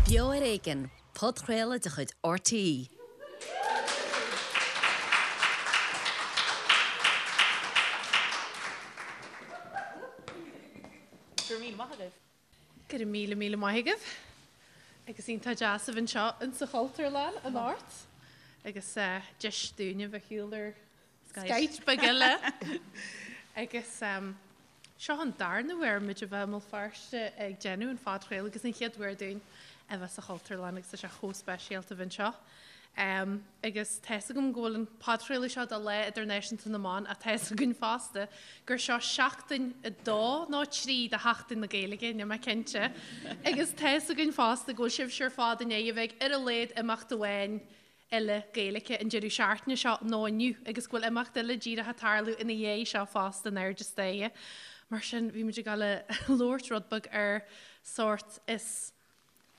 Beo ar Éigean, podchraoladh de chuid RTÉ. Go raibh míle maith agaibh. Go raibh míle míle maith agaibh. Agus iontach deas a bheith anseo insa Chultúrlann anocht. Agus deis dúinn a bheith ar shiúl ar Skype beag eile. Agus seo an darna huair muid a bheith i mBéal Feirste ag déanamh an phodchraoladh agus an chéad uair dúinn a bheith sa Chultúrlann agus tá sé chomh speisialta a bheith anseo. Agus tá fhios agam go bhfuil an podchraoladh seo do Lá Idirnáisiúnta na mBan ach tá fhios againn fosta gur seo seachtain a dó nó trí de Sheachtain na Gaeilge, níl mé cinnte. Agus tá fhios againn fosta go bhfuil sibhse ar fad i ndiaidh a bheith ag ar a laghad imeacht amháin eile Gaeilge an deireadh seachtaine seo nó inniu agus go bhfuil imeacht eile díreach ag tarlú ina dhiaidh seo fosta in airde staighre. Mar sin, bhí muid ag dul a labhairt rud beag ar sórt is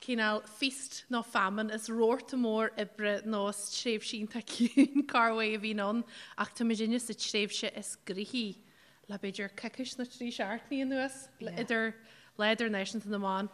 cineál feast nó famine, is rabharta mór oibre nó is tréimhse iontach ciúin corruair a bhíonn ann ach tá muidinne sa tréimhse is gnoithí le b'fhéidir coicís nó trí seachtainí anuas, idir Lá Idirnáisiúnta na mBan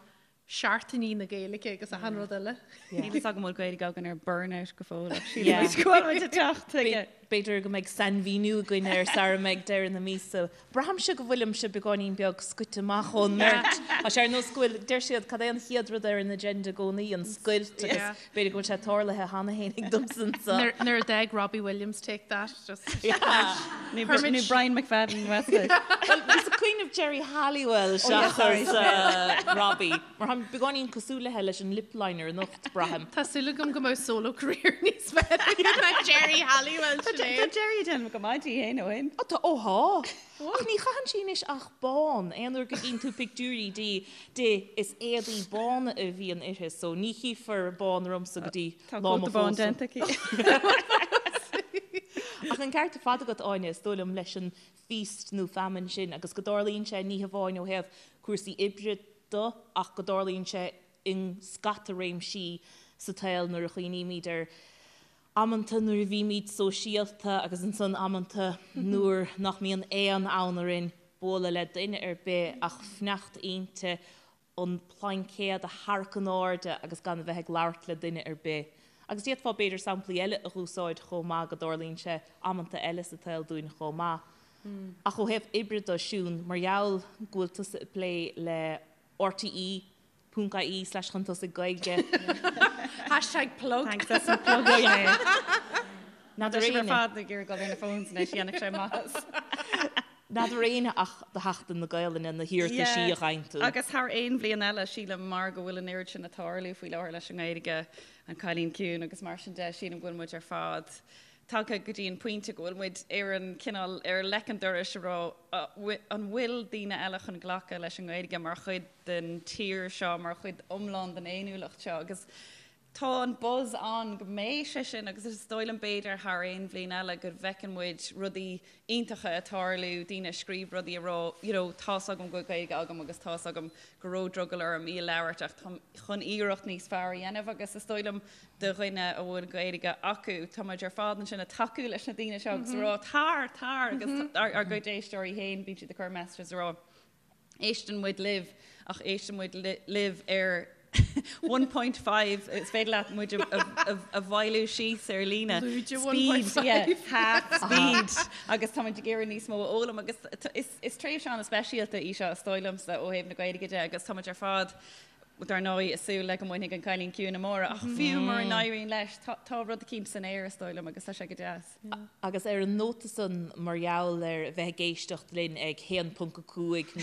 Seachtainí na Gaeilge agus achan rud eile. Níl fhios agam an bhfuil Gaeilge againn ar burnout go fóill ach sílim muid go bhfuil muid ag teacht chuige. B'fhéidir go mbeidh sainmhíniú againn air sara mbeidh deireadh na míosa. Braithimse go bhfuilimse beagáinín beag scoite amach ón mbeirt. Tá sé ar nós go bhfuil, deir siad, cad é an chéad rud ar an agenda i gcónaí, an scoilt agus b'fhéidir go bhfuil sé tarlaithe cheana féin ag domsa anseo. Nuair a d'fhág Robbie Williams Take That just. Nó Brian McFadden Westlake. Bhuel, bhíos ag cuimhneamh Geri Halliwell seachas Robbie. Mar táim beagáinín cosúil léithe leis an lip liner anocht, braithim. Tá súil agam go mbeidh solo career níos fearr aige ná Geri Halliwell, Sinéad. Tá Geri ag déanamh go maith di féin ó shin. Ó tá, ó thá. Ach ní chaitheann sí anois ach bán. Aon uair go gcíonn tú pictiúirí di, di, is éadaí bána a bhíonn uirthi, so ní chífear bán ormsa go dtí Tá lá mo cóta bán phósadh. déanta aici. Ach an ceart ar fad agat, Áine, is dóigh liom, leis an feast nó famine sin agus go dtarlaíonn sé ní hamháin ó thaobh cúrsaí oibre de ach go dtarlaíonn sé i scata réimsí sa tsaol nuair a chuimhnímid ar amanta nuair a bhímid sóisialta agus ansan amanta nuair nach mbíonn aon fhonn orainn bualadh le duine ar bith ach fanacht inti an plaincéad a tharrac in airde agus gan a bheith ag labhairt le duine ar bith. Agus d'fhéadfá b'fhéidir samplaí eile a dh'úsáid chomh maith go dtarlaíonn sé amanta eile sa tsaol dúinn chomh maith. Ach ó thaobh oibre de, Siún, mar gheall go bhfuil tusa ag plé le RTÉ ponc ie slash chun tosaigh Gaeilge. Hashtag plug. Thanks as an plug mé. N'fheadar Tá sibh ar éinne. fad ag iarraidh dul ar na phones anois, dhéanfadh sé maitheas. N'fheadar éinne ach do Sheachtain na Gaelainne na hiarrataisí a gheibheann tú. Agus thar aon bhliain eile, sílim, mar go bhfuil an oiread sin ag tarlú faoi láthair leis an nGaeilge, an Cailín Ciúin agus mar sin de, sílim go bhfuil muid ar fad tagtha go dtí an pointe go bhfuil muid ar an cineál, ar leic an dorais a rá an bhfuil daoine eile chun glacadh leis an nGaeilge mar chuid den tír seo, mar chuid iomlán den fhéiniúlacht seo agus Tá an buzz ann go mbeidh sé sin agus is dóigh liom b'fhéidir thar aon bhliain eile go bhfeiceann muid rudaí iontacha ag tarlú, daoine ag scríobh rudaí ag rá you know tá's agam go bhfuil Gaeilge agam agus tá's agam go raibh drogall orm í a labhairt ach táim chun iarracht níos fearr a dhéanamh agus is dóigh liom do dhuine a bhfuil Gaeilge acu tá muid ar fad ansin ag tacú leis na daoine seo agus ag rá tar, tar agus ár gcuid éisteoirí féin bíonn siad ag cur messages ag rá Éisteann muid libh, ach éisteann muid libh ar 1.5, is féidir leat muid a mhoilliú síos ar líne. Lúide Speed, 1.5. yeah, half speed. Agus tá muid ag iarraidh níos mó a fhoghlaim agus is tréimhse an-speisialta í seo, is dóigh liomsa, ó thaobh na Gaeilge de agus tá muid ar fad, dar ndóigh, ag súil le go mbainfidh an Cailín Ciúin amárach, ach fiú mura n-éiríonn leis, tá rud eicínt san aer, is dóigh liom, agus tá sé go deas. Agus ar an nóta san, mar gheall ar bheith ag éisteacht linn ag 1.5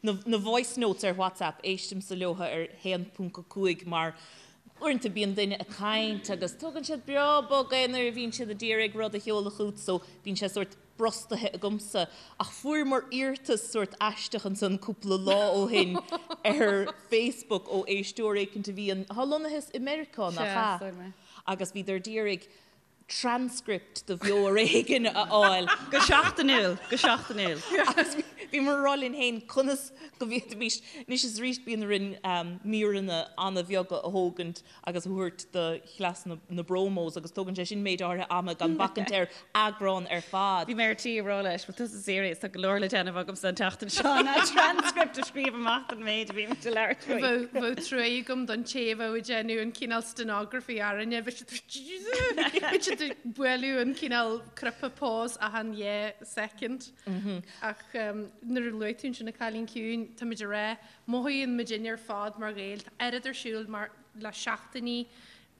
nó na voice notes ar WhatsApp, éistimse leo ar 1.5 mar uaireanta bíonn duine ag caint agus tógann siad breá bog é nuair a bhíonn siad ag iarraidh rud a sheoladh chugat so bíonn sé sórt brostaithe agamsa. Ach fuaireamar iarratas sórt aisteach ansan cúpla lá ó shin ar Facebook ó éisteoir éicint a bhíonn, atá lonnaithe i Meiriceá, nach ea? Agus bhíodar d'iarraidh transcript de Bheo ar Éigean a fháil. Go seachtainiúil, go seachtainiúil. Agus. Bhíomar ag rá linn féin conas go bhféadfaimis, anois is arís bíonn orainn míreanna an-bheaga a thógaint agus a thabhairt do chleas na bpromos agus tógann sé sin méid áirithe ama gan bacaint ar eagrán ar fad. Bhí mé ar tí a rá leis, bhfuil tusa serious, tá go leor le déanamh agamsa an tseachtain seo ná transcript a scríobh amach don méid a bhí muid ag labhairt faoi. Bheadh trua agam don té a bheadh ag déanamh an cineál stenography orainne, bheadh siad ag bualadh an cineál cnaipe pause achan dhá second. Ach nuair a luaigh tú ansin an Cailín Ciúin, tá muid ag rá, mothaíonn muidinne ar fad mar Ghaeil, tá oiread ar siúl mar le seachtainí,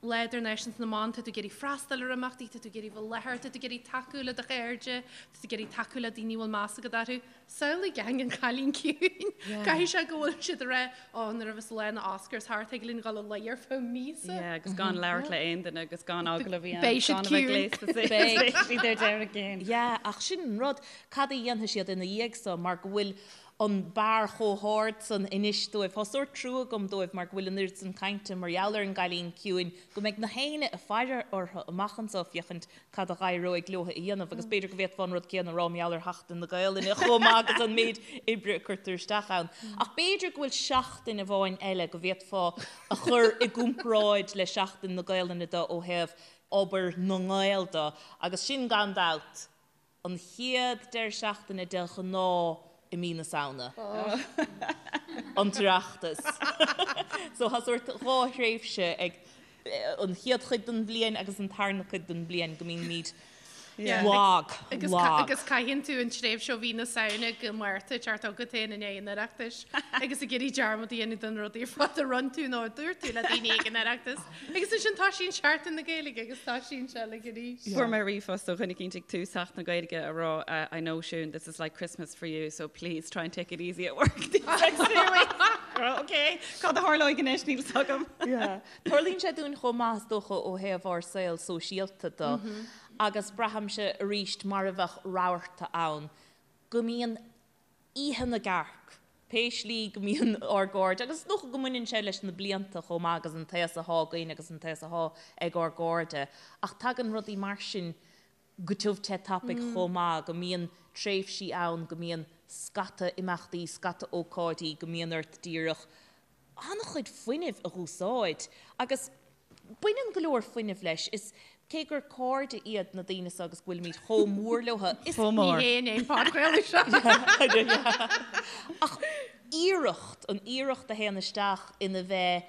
Lá Idirnáisiúnta na mBan, tá tú ag iarraidh freastal ar imeachtaí, tá tú ag iarraidh bheith i láthair, tá tú ag iarraidh tacú le do chairde, tá tú ag iarraidh tacú le daoine a bhfuil meas agat orthu. Samhlaigh gang an Chailín Ciúin. Caithfidh sé go bhfuil siad ag rá, ó, nuair a bheas lá na Oscars thart, thig linn dul a luí ar feadh míosa. Yeah, agus gan labhairt le aon duine agus gan agallamh a dhéanamh, Beidh siad gan a bheith ciúin. gléasta suas, beidh siad ar deireadh cinn. Yeah, ach sin an rud, cad a dhéanfaidh siad ina dhiaidh so mar go bhfuil an barr chomh hard san anois dóibh. Tá sórt trua agam dóibh mar go bhfuil an oiread san cainte mar gheall ar an gCailín Ciúin go mbeidh na héinne ag faire orthu amach anso féachaint cad a dh'éireoidh leo a dhéanamh agus b'fhéidir go bhféadfá an rud céanna a rá mar gheall ar Sheachtain na Gaelainne chomh maith agus an méid oibre a cuirtear isteach ann. Ach b'fhéidir go bhfuil seachtain amháin eile go bhféadfá a chur i gcomparáid le Seachtain na Gaelainne do ó thaobh obair na nGael do agus sin gan dabht An chéad deireadh seachtaine de ghnáth i mí na Samhna. An tOireachtas. So tá sórt dhá thréimhse ag an chéad chuid den bhliain agus an tarna cuid den bhliain go mbímid lag, lag. Agus caitheann tú an tréimhse ó mhí na Samhna go Márta teacht agat féin i ndiaidh an Oireachtais agus ag iarraidh dearmad a dhéanamh den rudaí ar fad a rinne tú nó a dúirt tú le daoine ag an Oireachtas. Agus ansin toisíonn Seachtain na Gaeilge agus toisíonn sé like arís. Fuair mé ríomhphost ó dhuine eicínt ag tús Sheachtain na Gaeilge a rá I know Siún this is like Christmas for you so please try and take it easy at work these next few weeks. Ok, cad a tharlóidh anois níl 's agam. Tarlaíonn sé dúinn chomh maith is dócha ó thaobh ár saol sóisialta de agus braithimse arís mar a bheadh rabharta ann go mbíonn Oíche na gCearc, pé slí go mbíonn ár gcairde, agus is dócha go mbaineann sé leis na blianta chomh maith agus an t-aos athá againn agus an t-aos athá ag ár gcairde, ach tagann rudaí mar sin go tiubh te tapaidh chomh maith, go mbíonn tréimhsí ann go mbíonn scata imeachtaí, scata ócáidí, go mbíonn ort díreach an-chuid fuinnimh a dh'úsáid agus baineann go leor fuinnimh leis. Is cé gur cairde iad na daoine seo agus go bhfuilimid chomh mór leo, is. Chomh mór. Ní hé an podchraoladh seo. Ach iarracht, an iarracht a théann isteach ina bheith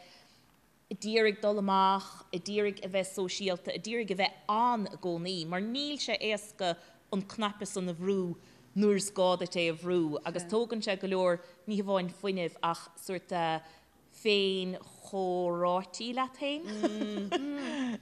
a d'iarraidh dul amach, a d'iarraidh a bheith sóisialta, a d'iarraidh a bheith ann i gcónaí, mar níl sé éasca an cnaipe san a bhrú nuair is gá duit é a bhrú agus tógann sé go leor, ní hamháin fuinnimh ach sórt féin-chomhráití leat féin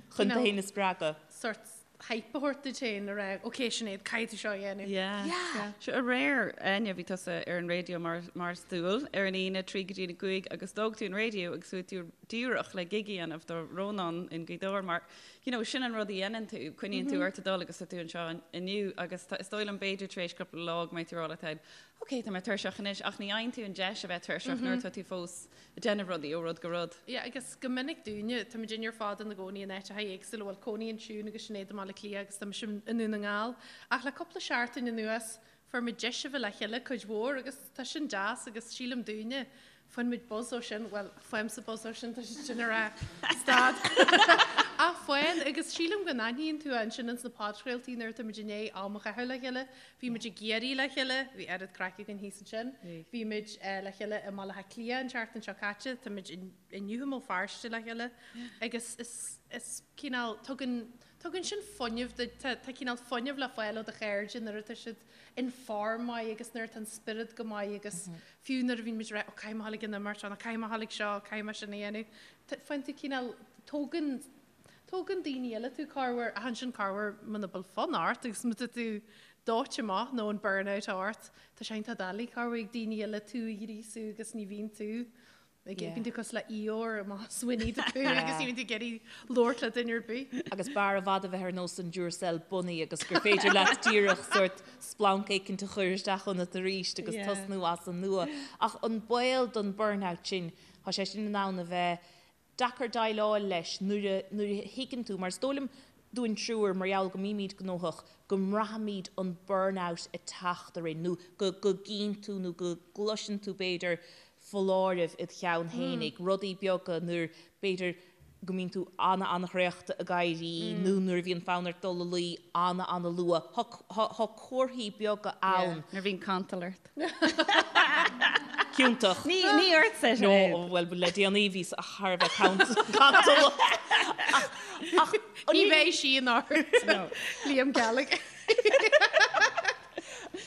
chun tú féin a spreagadh. Sórt hype a thabhairt duit féin a rá, ok Sinéad, caithfidh tú seo a dhéanamh. Yeah. Yeah. Sure aréir, Áine, bhí tusa ar an raidió mar, mar is dual ar an Aoine, 3 go dtí a 5 agus d'fhág tú an raidió agus chuaigh tú díreach le gig a dhéanamh do Rónán in Gaoth Dobhair mar, you know, sin an rud a dhéanann tú, coinníonn tú ort ag dul agus tá tú anseo inniu agus tá, is dóigh liom b'fhéidir tar éis cúpla lá go mbeidh tú ag rá leat féin, ok, tá mé tuirseach anois ach ní fhaigheann tú an deis a bheith tuirseach nuair atá tú fós ag déanamh rudaí ó rud go rud. Yeah, agus go minic dúinne, tá muidinne ar fad ina gcónaí in áiteacha éagsúla, bhuel cónaíonn Siún agus Sinéad i mBaile Átha Cliath agus tá mise i nDún na nGall, ach le cúpla seachtain anuas fuair muid deis a bheith le chéile cuid mhór agus tá sin deas agus sílim dúinne, faigheann muid buzz ó sin, bhuel faighimse buzz ó sin, tá siad sin ag rá stad ach faigheann agus sílim go n-aithníonn tú ansin ins na podchraoltaí nuair atá muid i ndiaidh am a chaitheamh le chéile, Bhí muid i gCiarraí le chéile, bhí oiread craic againn thíos ansin. Bhí muid le chéile i mBaile Átha Cliath an tseachtain seo caite, tá muid inniu i mBéal Feirste le chéile agus is is cineál, tugann, tugann sin fuinneamh duit, tá tá cineál fuinneamh le fáil ó do chairde nuair atá siad in form maith agus nuair atá an spiorad go maith agus fiú nuair a bhíonn muid ag rá ó caithfidh mé a dhul ag an imeacht seo nó caithfidh mé a dhul ag seo, caithfidh mé sin a dhéanamh, faigheann tú cineál, tógann Tógann daoine eile tú corruair, ach ansin corruair muna bhfuil fonn ort agus má tá tú dóite amach nó an burnout ort, tá sé iontach doiligh corruair ag daoine eile tú a ghríosú agus ní bhíonn tú ag, bíonn tú cosúil le Eeyore amach as Winnie the Pooh agus ní bhíonn tú ag iarraidh labhairt le duine ar bith. Agus b'fhearr i bhfad a bheith ar nós an Duracell Bunny agus gur féidir leat díreach sórt splanc éicint a chur isteach ionat arís agus tosnú as an nua. Ach an baol don burnout sin, tá sé sin in ann a bheith deacair déileáil leis nuair a, nuair a thuigeann tú, mar is dóigh liom. dúinn triúr, mar gheall go mbímid gnóthach, go mbraithimid an burnout ag teacht orainn nó go go gcíonn tú nó go gcloiseann tú b'fhéidir foláirimh id cheann fhéinig, rudaí beaga nuair b'fhéidir go mbíonn tú ana-ana-thraochta ag éirí nó nuair a bhíonn fonn ort dul a luí ana-ana-luath. Tá comharthaí beaga ann. Nuair a bhíonn cantal ort. Ciontach. Ní ní ortsa No, bhuel le déanaí bhíos thar a bheith cantalach. Ach Ní bheidh sí in ort. Liam Gallagher.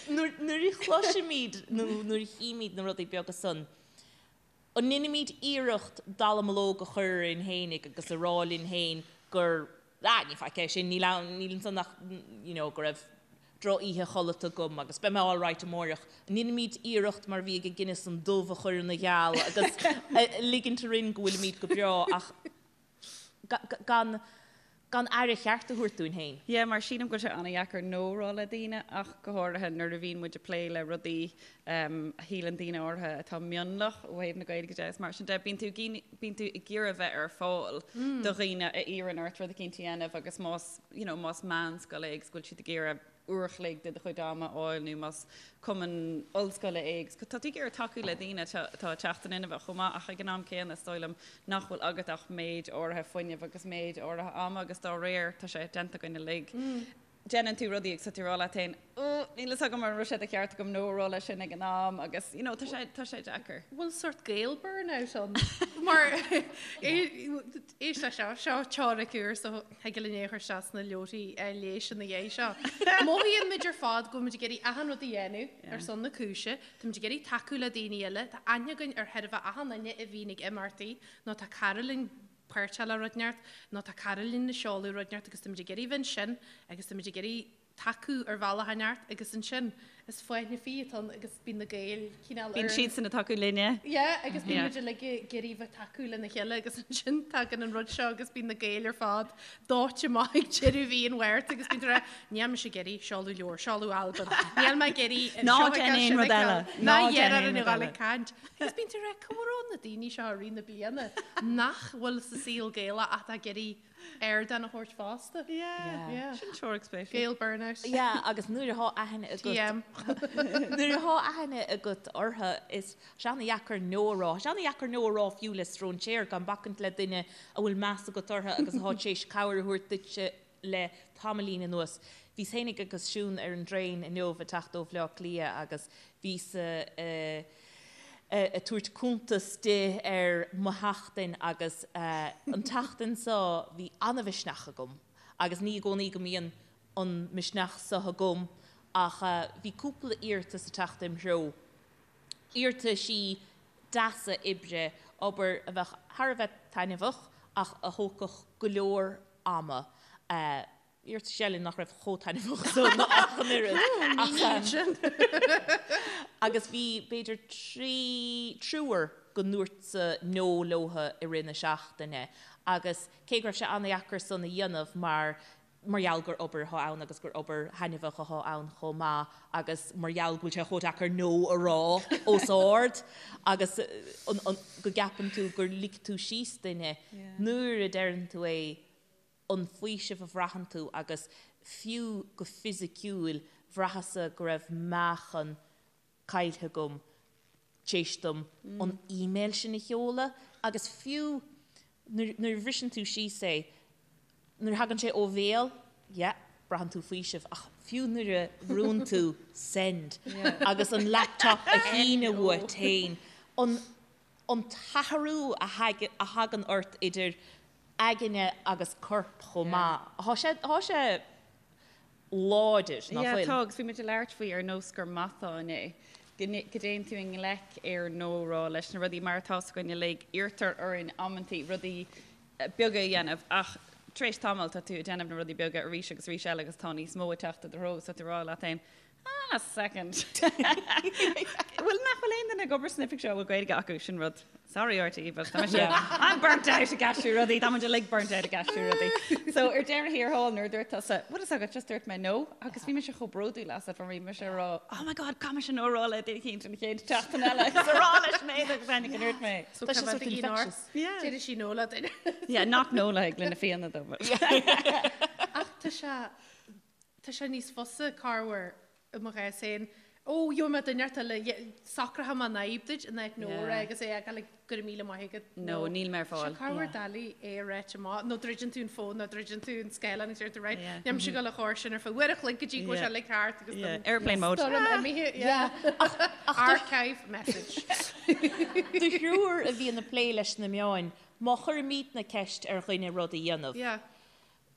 Nuair a chloisimid nó nuair a chímid na rudaí beaga san, An ndeinimid iarracht dallamullóg a chur orainn fhéinig agus a rá linn féin gur, ah, ní faic é sin, níl ann, níl ansan ach, you know, go raibh drochoíche chodlata agam agus beidh mé alright amáireach. An ndeinimid iarracht mar a bhí ag Guinness an dubh a chur ina gheal agus ligint orainn go bhfuilimid go breá ach gan gan aire cheart a thabhairt dúinn féin. Yeah, mar sílim go bhfuil sé an-dheacair no a rá le daoine ach go háirithe nuair a bhíonn muid ag plé le rudaí a shíleann daoine áirithe atá mionlach ó thaobh na Gaeilge de is mar sin de. Bíonn tú bíonn tú ag iarraidh bheith ar fáil do dhaoine a iarrann ort rud eicínt a dhéanamh agus más you know más meánscoil é agus go bhfuil siad ag iarraidh uair a chloig de do chuid ama a fháil nó más cumann ollscoile é agus tá tú ag iarraidh tacú le daoine atá ag teacht in inmhe chomh maith ach ag an am céanna is dóigh liom nach bhfuil agat ach méid áirithe fuinnimh agus méid áirithe ama agus dá réir tá sé déanta againn uilig. Déanann tú rudaí agus tá tú ag rá leat féin oh níl fhios agam an raibh sé de cheart agam no a rá leis sin ag an am agus you know tá sé tá sé deacair. Bhfuil sort Gael burnout ann mar Éist leis seo, seo teoiric úr so thig linn é a chur isteach sna leabharthaí leighis ina dhiaidh seo. Mothaíonn muid ar fad go bhfuil muid ag iarraidh achan rud a dhéanamh ar son na cúise, tá muid ag iarraidh tacú le daoine eile, tá aithne againn ar chóir a bheith achan duine a bhíonn ag imeachtaí nó tá cara linn páirteach le rud inteacht nó tá cara linn ag seoladh rud inteacht agus tá muid ag iarraidh bheith ansin agus tá muid ag iarraidh tacú ar bhealach inteacht agus ansin is fáinne fí atá ann agus bíonn na Gaeil cineál ar Bíonn siadsan ag tacú linne. Yeah agus bíonn muid uilig ag iarraidh bheith tacú lena chéile agus ansin tagann an rud seo agus bíonn na Gaeil ar fad dóite amach ag deireadh mhí an Mhárta agus bíonn tú ag rá níl mise ag iarraidh seoladh leabhar, seoladh albam, níl mé ag iarraidh Ná déan aon rud eile. Ná déan aon rud eile. Caint. Agus bíonn tú ag rá cá raibh na daoine seo i rith na bliana nach bhfuil sa saol Gaelach ach atá ag iarraidh ardán a thabhairt fosta. Yeah. Sin teoiric spéisiúil. Gael burnout. Yeah, agus nuair atá aithne agat. TM. Nuair atá aithne agat orthu, is sé ana-dheacair no a rá. Sé ana-dheacair no a rá fiú le stróinséir, gan bacaint le duine a bhfuil meas agat orthu agus atá tar éis cabhair a thabhairt duitse le tamaillín anuas. Bhíos fhéinig agus Siún ar an dtraein inniu ag teacht ó Bhleá Cliath agus bhíos ag tabhairt cuntas di ar mo sheachtain agus an tseachtain seo bhí an-mhisneach agam agus ní i gcónaí go mbíonn an misneach seo agam ach bhí cúpla iarratas ag teacht im threo, iarrataisí deasa oibre, obair a bheadh thar a bheith taitneamhach ach a thógfadh go leor ama. Iarratais eile nach raibh chomh taitneamhach san ach an oiread. Agus bhí b'fhéidir trí, triúr go ndúrtsa no leotha i rith na seachtaine agus cé go raibh sé an-dheacair san a dhéanamh mar mar gheall gur obair atá ann agus gur obair thaitneamhach atá ann chomh maith agus mar gheall go bhfuil sé chomh deacair no a rá os ard agus go gceapann tú gur lig tú síos duine nuair a deireann tú é an faoiseamh a bhraitheann tú agus fiú go fisiciúil bhraitheas-sa go raibh meáchan caillte agam tar éis dom an email sin a sheoladh agus fiú nuair a bhriseann tú síos é, nuair a thagann sé ó bhéal, yeah, braitheann tú faoiseamh ach fiú nuair a bhrúnn tú send agus an laptop a shíneadh uait féin, an an t-athrú a thagann ort idir aigne agus corp chomh maith. Tá sé, tá sé láidir, nach bhfuil? Yeah, tá, agus bhí muid ag labhairt faoi ar nós gur matán é, go dtéann tú i ngleic ar no a rá leis na rudaí mar atá 's againn uilig, iarrtar orainn amantaí rudaí beaga a dhéanamh ach tar éis tamaill tá tú ag déanamh na rudaí beaga arís agus arís eile agus tá níos mó ag teacht i do threo agus tá tú ag rá leat féin, Ah, second. Bhuel, nach bhfuil aon duine ag obair san oifig seo a bhfuil Gaeilge acu, sin rud. Sorry RTÉ, but tá mise, I'm burnt out ag aistriú rudaí, tá muid uilig burnt out ag aistriú rudaí. So ar deireadh thiar thall nuair a dúirt tusa, bhfuil fhios agat, just dúirt mé no, agus bhí mise chomh bródúil asat mar bhí mise ag rá, oh my god, caithfidh mise no a rá le duine éicint an chéad tseachtain eile, agus a rá leis Sinéad agus Áine go ndúirt mé. So Tá sé sort infectious. Yeah. Déarfaidh sí no le duine. Yeah, not no le le na Fianna though. But. tá sé, tá sé níos fusa corruair i mo chás féin, Ó, gheobhaidh mé duine inteacht eile, socróidh mé an fhadhb duit in áit no a rá agus é a fhágáil ag go raibh míle maith agat. No, níl mé ar fáil. Tá sé corruair doiligh é a ráit amach, nó druideann tú an fón nó druideann tú an scáileán agus deir tú right, níl mise ag dul a chur sin ar feadh uair a chloig go dtí go bhfuil sé uilig thart agus Yeah, airplane mode. Stoirm imithe, yeah. Archive message. Do thriúr a bhíonn ag plé leis na meáin, má chuirimidne ceist ar dhuine rud a dhéanamh, Yeah.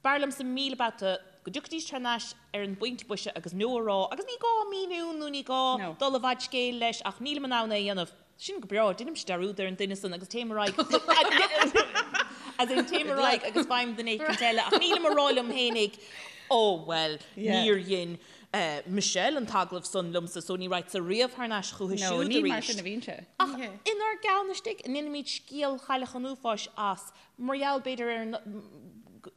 B'fhearr liomsa 1000 babhta go dtiocfaidís thar n-ais ar an bpointe boise agus no a rá agus ní gá míniú nó ní gá dul i bhfad scéil leis ach nílim in ann é a dhéanamh. Sin go breá, deinimse dearúd ar an duine san agus téim ar aghaidh as in téim ar aghaidh agus faighim duine éicint eile ach nílim a rá liom fhéinig oh well níor dhein Michelle an t-agallamh san liomsa so ní raghadsa riamh thar n-ais chúithi No, siúd ní mar arís. sin a bhíonn sé. Ach inár gceann istigh, an ndéanaimid scéal Chailleach an Uafáis as Mar gheall, b'fhéidir, ar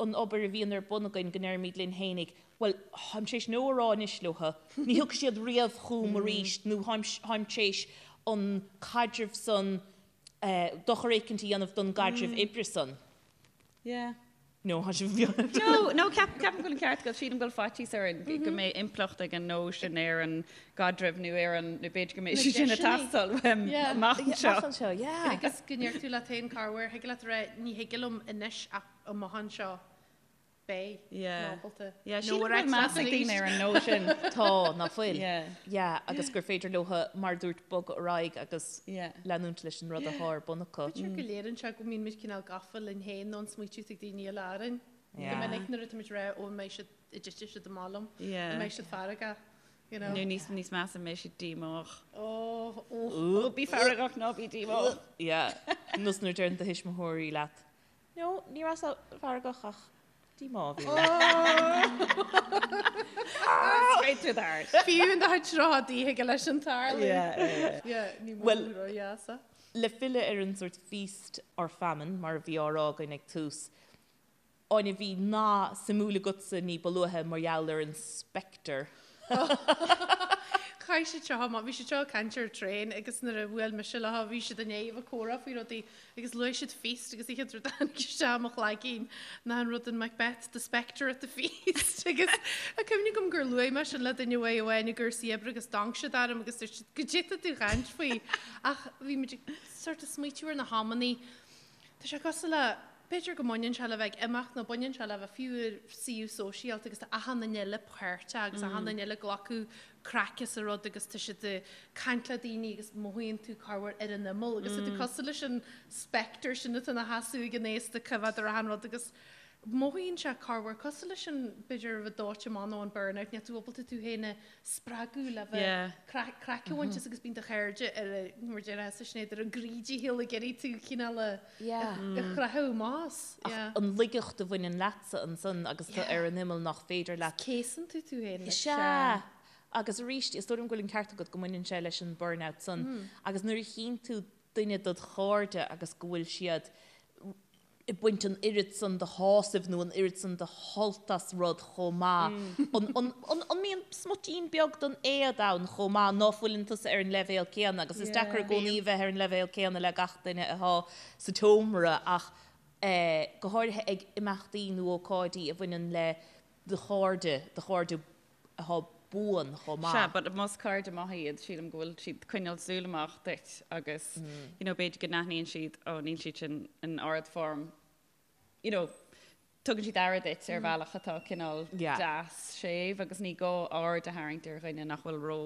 an obair a bhíonn ar bun againn go ndeirimid linn fhéinig, bhuel, táim tar éis no a rá anois leotha, ní thiocfaidh siad riamh chugam arís nó táim tar éis an caidreamh san, dochar éicint a dhéanamh don gcaidreamh oibre san. Yeah. No, tá sibh. No, no, ceapaim go bhfuil an ceart agat. Sílim go bhfuil faitíos orainn go mbeidh impleacht ag an no sin ar an gcaidreamh nó ar an, nó b'fhéidir go mbeidh sé sin ag teastáil uaim amach anseo. Amach anseo, yeah. Agus go ndeir tú leat féin corruair, thig leat a rá ní thig liom anois ach amach anseo beidh Yeah. ábalta. Yeah, No sílim go a rá bhfuil meas ag daoine ar an no sin. Tá, ná fuil. Yeah. Yeah, agus gur féidir leotha, mar a dúirt, bogadh ar aghaidh agus Yeah. leanúint leis an rud atá ar bun acu. B'fhéidir go léiríonn sé go mbíonn muid cineál gafa linn féin nó an smaoitiú ag daoine eile orainn. Go Yeah. minic nuair atá muid ag rá ó an mbeidh siad, an dtitfidh siad amach liom, Yeah. an mbeidh siad feargach, you know. Nó níos níos measa an mbeidh siad díomách. Ó, ó. Ó, bí feargach ná bí díomách. Yeah. Nós nuair a deireann do thuismitheoirí leat, No, ní rabhas feargach ach díomá a bhí orm. Straight to the heart. Fiú in do chuid seo díothaige leis an tarlú. Yeah, Yeah, ní Well- mó ródheasa. Le filleadh ar an sort feast or famine, mar a bhí á rá againn ag tús, Áine, bhí nath suimiúil agatsa ní ba luaithe mar gheall ar an spectre. Chaith siad seo amach, bhí siad seo ag caint ar an traein agus nuair a bhuail mise leo bhí siad i ndiaidh a bheith ag comhrá faoi rudaí agus luaigh siad feast agus an chéad rud a tháinig isteach i mo chloigeann ná an rud in Macbeth, the spectre at the feast agus tá cuimhne agam gur luaigh mé sin le duine uaidh amháin i gcúrsaí oibre agus d'amharc siad orm agus dúirt siad goidé tá tú ag caint faoi ach bhí muid ag sort of smaoitiú ar na hamannaí Tá sé cosúil le, b'fhéidir go mbaineann sé le bheith ag imeacht nó baineann sé le bheith fiú i suíomh sóisialta agus tá achan duine eile páirteach agus achan duine eile ag glacadh craic as an rud agus tá siad ag caint le daoine agus mothaíonn tú corruair ar an imeall agus tá tú cosúil leis an spectre sin atá ina sheasamh ag an aosta ag coimhéad ar achan rud agus mothaíonn sé corruair cosúil leis an, b'fhéidir, a bheith dóite amach nó an burnout, níl tú ábalta tú féin a spreagadh le bheith Yeah. craic craic a bhaint as agus bíonn do chairde ar a, mar a déarfá Sinéad, ar a gcroí dícheall ag iarraidh tú cineál a Yeah. a chroitheadh amach as. Ach Yeah. an laigeacht a bhaineann leatsa ansan agus tú ar an imeall nach féidir leat. Céasann tú tú féin. Sea. Agus arís, is dóigh liom go bhfuil an ceart agat go mbaineann sé leis an burnout san. Agus nuair a chíonn tú duine dod chairde agus go bhfuil siad ag baint an oiread san de shásamh nó an oiread san de shult as rud chomh maith. An, an, an, an mbíonn smuitín beag den éad ann chomh maith ná fuileann tusa ar an leibhéal céanna agus is deacair i gcónaí a bheith ar an leibhéal céanna le gach duine atá sa tseomra ach eh, go háirithe ag imeachtaí nó ócáidí a bhaineann le do chairde, do chairde atá buan chomh maith. Sea, but más cairde maithe iad, sílim go bhfuil siad ag coinneáil súil amach duit agus, you know, b'fhéidir go n-aithníonn siad, oh, níl siad sin in ard-form, you know, tugann siad aire duit ar bhealach atá cineál deas, séimh agus ní gá aird a tharraingt ar dhuine nach bhfuil ró,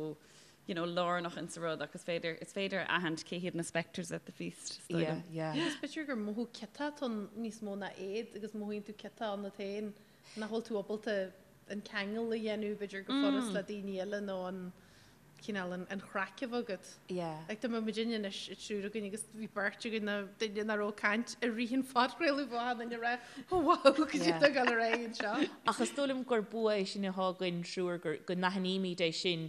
you know, lárnach insa rud ach is féidir, is féidir a aithint cé hiad na spectres at the feast, is dóigh liom. Yeah, yeah. Agus b'fhéidir gur mothú ciotach atá ann níos mó ná éad agus mothaíonn tú ciotach ionat féin nach bhfuil tú ábalta an ceangal a dhéanamh b'fhéidir go furast le daoine eile nó an cineál an chraic a bheith agat. Yeah. Like tá muid anois an triúr againn agus bhí beirt againn nó duine nach raibh ag caint i rith an phodchraoladh bheadh achan duine ag rá oh wow goidé Yeah. atá ag dul ar aghaidh anseo. Ach is dóigh liom gur bua é sin atá againn triúr gur go n-aithnímid é sin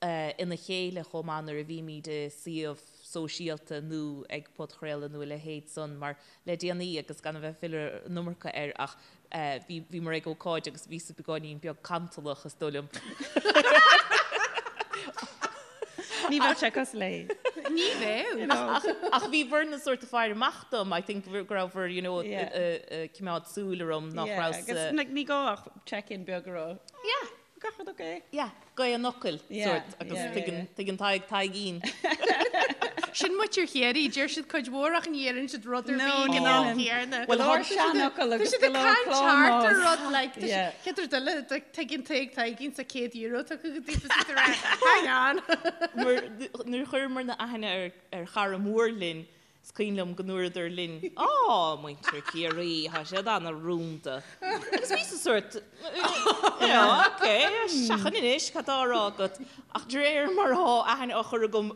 ina chéile chomh maith nuair a bhímid i suíomh sóisialta nó ag podchraoladh nó a leithéid san mar le déanaí agus gan a bheith ag filleadh an iomarca air ach bhí bhíomar ag ócáid agus bhíos beagáinín beag cantalach is dóigh liom. Ní bheadh sé cosúil léi. Ní bheadh. Ach bhí bhur na sort of faire amach dom, I think go raibh bhur, you know, ag coimeád súil orm nach raibh sa. Agus like ní gá ach check-in beag a rá. Yeah. Gach rud ok. Yeah, gaoth an fhocail, sort, agus tuigeann, tuigeann Tadhg Taidhgín. Sin muintir Chiarraí, deir siad cuid mhór ach ní dheireann siad rud ar bith ag an am céanna. Go leor seanfhocal agus go leor Tá siad ag caint thart ar rud like, chéad rud eile, tuigeann Tadhg Taidhgín sa €100 tugtha go daofa is iad ag rá, hang on. Nuair a chuireamar na aithne ar chara mór linn, Is cuimhin liom go ndúradar linn, Á, muintir Chiarraí, tá siad ana-rúnda. Agus bhíos-sa sórt, you know, ok, seachain anois, cad tá á rá agat? Ach de réir mar atá aithne á chur agam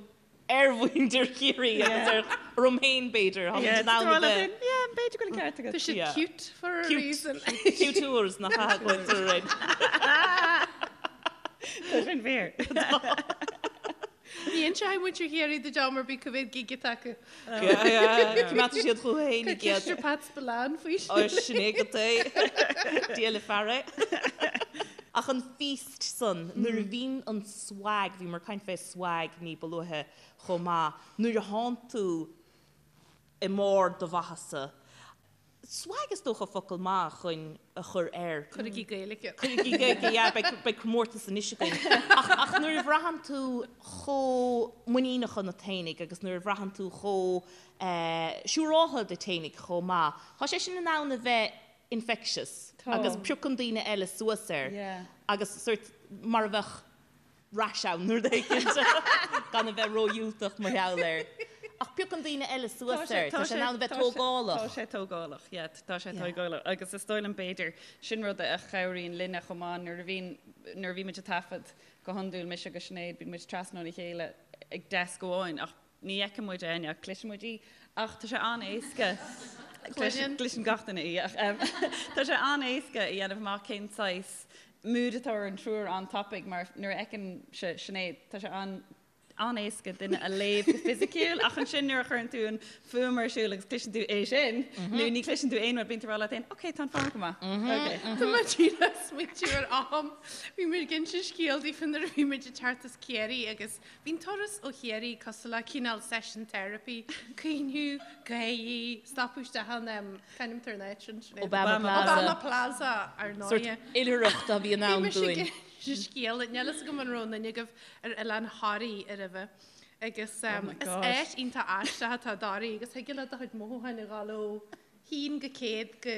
ar mhuintir Chiarraí agus ar orm féin, b'fhéidir, táimid in ann a bheith. Yeah, b'fhéidir go bhfuil an ceart agat. Tá siad cute for a reason. Cute tours nach ea go bhfuil tú Tá sin fíor. Ní inseoidh muintir Chiarraí duit am ar bith cá mhéad gig atá acu. Coimeádfaidh siad chucu féin iad. Ceist ar Pat Spillane faoi sin. Sin é agat é. Dia le fear é. Ach an feast san, nuair a bhíonn an swag, bhíomar ag caint fé swag ní ba luaithe chomh maith, nuair a thánn tú i mbarr do mhaitheasa, Swag is dócha focal maith chun a chur air. Cuirigí Gaeilge. Cuirigí Gaeilge, yeah, beidh, beidh comórtas anois againn. Ach, ach nuair a bhraitheann tú chomh muiníneach ionat fhéinig agus nuair a bhraitheann tú chomh eh, siúráltha díot fhéinig chomh maith, tá sé sin in ann a bheith infectious Tá. agus piocann daoine eile suas air Yeah. agus sort mar a bheadh rash ann nó rud éicint gan a bheith ródhiúltach mar gheall air. Ach piocann daoine eile suas air, tá sé in ann a bheith tógálach. Tá sé tógálach, yeah, tá sé tógálach. Agus is dóigh liom b'fhéidir, sin rud a chabhraíonn linne chomh maith nuair a bhíonn, nuair a bhímid ag taifead go hiondúil, mise agus Sinéad, bíonn muid trasna óna chéile ag deasc amháin ach Ní fheiceann muid Áine ach cloiseann muid í. Ach tá sé an-éasca, cloiseann gach duine í, ach tá sé an-éasca a dhéanamh amach cén saghas mood atá ar an triúr an-tapaidh mar nuair a fheiceann Sinéad, tá sé an-éasca duine a léamh go fisiciúil ach ansin nuair a chuireann tú an fuaim ar siúl agus cloiseann tú é sin nó ní chloiseann tú aon rud, bíonn tú ag rá leat féin, ok, tá an fuaim go maith. Ok. Tá mé díreach ag smaointiú ar am, bhí muid ag inse scéal daofa nuair a bhí muid ag teacht as Ciarraí agus Bhí an turas ó Chiarraí cosúil le cineál session therapy, caoineadh, gáirí, stopadh isteach in, c'ainm atá ar an áit sin, Sinéad? Obama Plaza. Obama Plaza, ar ndóighe. Sórt oilithreacht a bhí in ann Bhí mise ag dúinn. inse scéal, níl fhios agam an raibh aon duine agaibh ar oileán Thoraí roimhe. Agus Oh my is gosh. áit iontach aisteach atá i dToraí agus thig leat do chuid mothúcháin a ghabháil ó haon go 100 go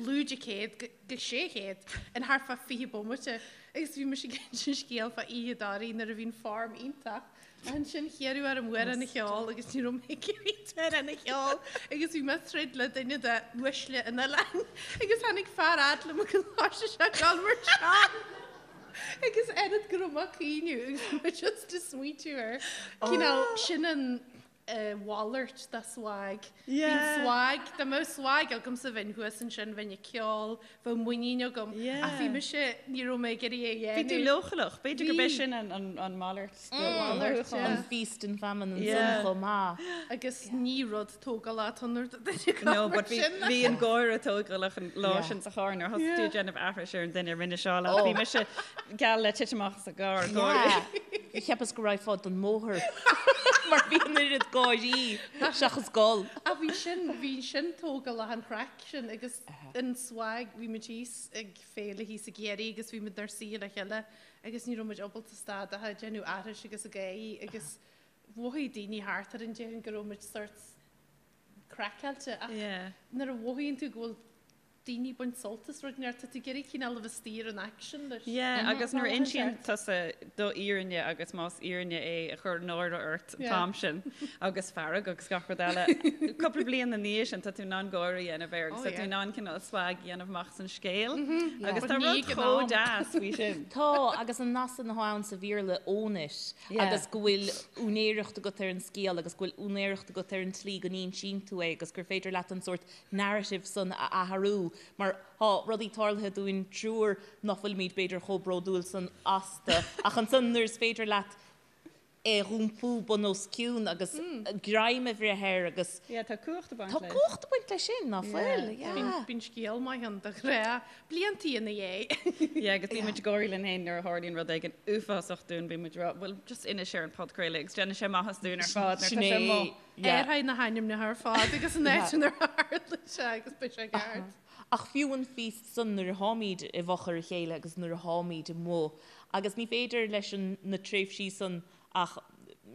lúide 100 go 600 in thart fá 20 bomaite agus bhí mise ag inse scéal fá oíche i dToraí nuair a bhí an form iontach ach ansin hiarradh orm amhrán a cheol agus ní raibh mé ag iarraidh amhrán a cheol agus bhí mé ag troid le duine de uaisle an oileáin agus tháinig fear fhad liom agus thosaigh sé ag dul mar seo agus oiread go raibh mé ag caoineadh agus bhí mé just ag smaointiú ar cineál sin an a mhalairt de swag. Bíonn swag, dá mbeadh swag agamsa bheinn thuas ansin, bheinn ag ceol, bheadh muinín agam. Ach bhí mise, ní raibh mé ag iarraidh é a dhéanamh. Bhí tú leochaileach, b'fhéidir gurb é sin an mhalairt de mhothúchán. An feast and famine ansan chomh maith. Agus ní rud tógálach atá ann nuair atá duine ag No, obair but bhí sin. bhí an gáire tógálach an lá sin sa charr nuair thosaigh tú ag déanamh aithris ar an duine a rinne seo leat. Bhí mise geall le titim amach as an gcarr, gáire. Cheapas go raghfá den mbóthar mar bhí an oiread gáirí seachas gol. Ach bhí sin, bhí sin tógálach an chraic sin agus an swag, bhí muid thíos ag féile thíos i gCiarraí agus bhí muid inár suí le chéile agus ní raibh muid ábalta stad ach ag déanamh aithris agus ag gáirí agus mhothaigh daoine thart orainn déarfainn go raibh muid sort craiceáilte ach nuair a mhothaíonn tú go bhfuil daoine ag baint sult as rud inteacht, tá tú ag iarraidh cineál a bheith istigh ar an aicsean leis. Yeah, agus nuair a insíonn tusa do fhírinne agus más fhírinne é a chuir náire ort an t-am sin agus fearg agus gach rud eile, cúpla bliain ina dhiaidh sin tá tú in ann gáire a dhéanamh air agus tá tú in ann cineál swag a dhéanamh amach as an scéal agus tá rud chomh deas faoi sin. Tá, agus an nath san atá ann sa Bhéarla, own it, agus go bhfuil úinéireacht agat ar an scéal agus go bhfuil úinéireacht agat ar an tslí go n-insíonn tú é agus gur féidir leat an sórt narrative san a athrú mar tá rudaí tarlaithe dúinn triúr nach bhfuilimid b'fhéidir chomh bródúil san astu ach ansan nuair is féidir leat. é a dh'iompú bun os cionn agus greim a bhreith air agus. Yeah, tá cumhacht ag baint leis. Tá cumhacht ag baint leis sin, ná fuil? Yeah. Bíonn scéal maith ann de ghnáth, bliantaí ina dhiaidh. Yeah, agus bíonn muid ag gáirí linn féin nuair a tharlaíonn rud éigin uafásach dúinn, bíonn muid ag rá, bhuel, just inis ar an podchraoladh agus déanann sé maitheas dúinn ar fad nuair atá sé amuigh. Athraigh na hainmneacha ar fad agus an áit inar tharla sé agus beidh sé ceart. Ach fiú an feast san nuair atháimid i bhfochair a chéile agus nuair atháimid amuigh, agus ní féidir leis an na tréimhsí san ach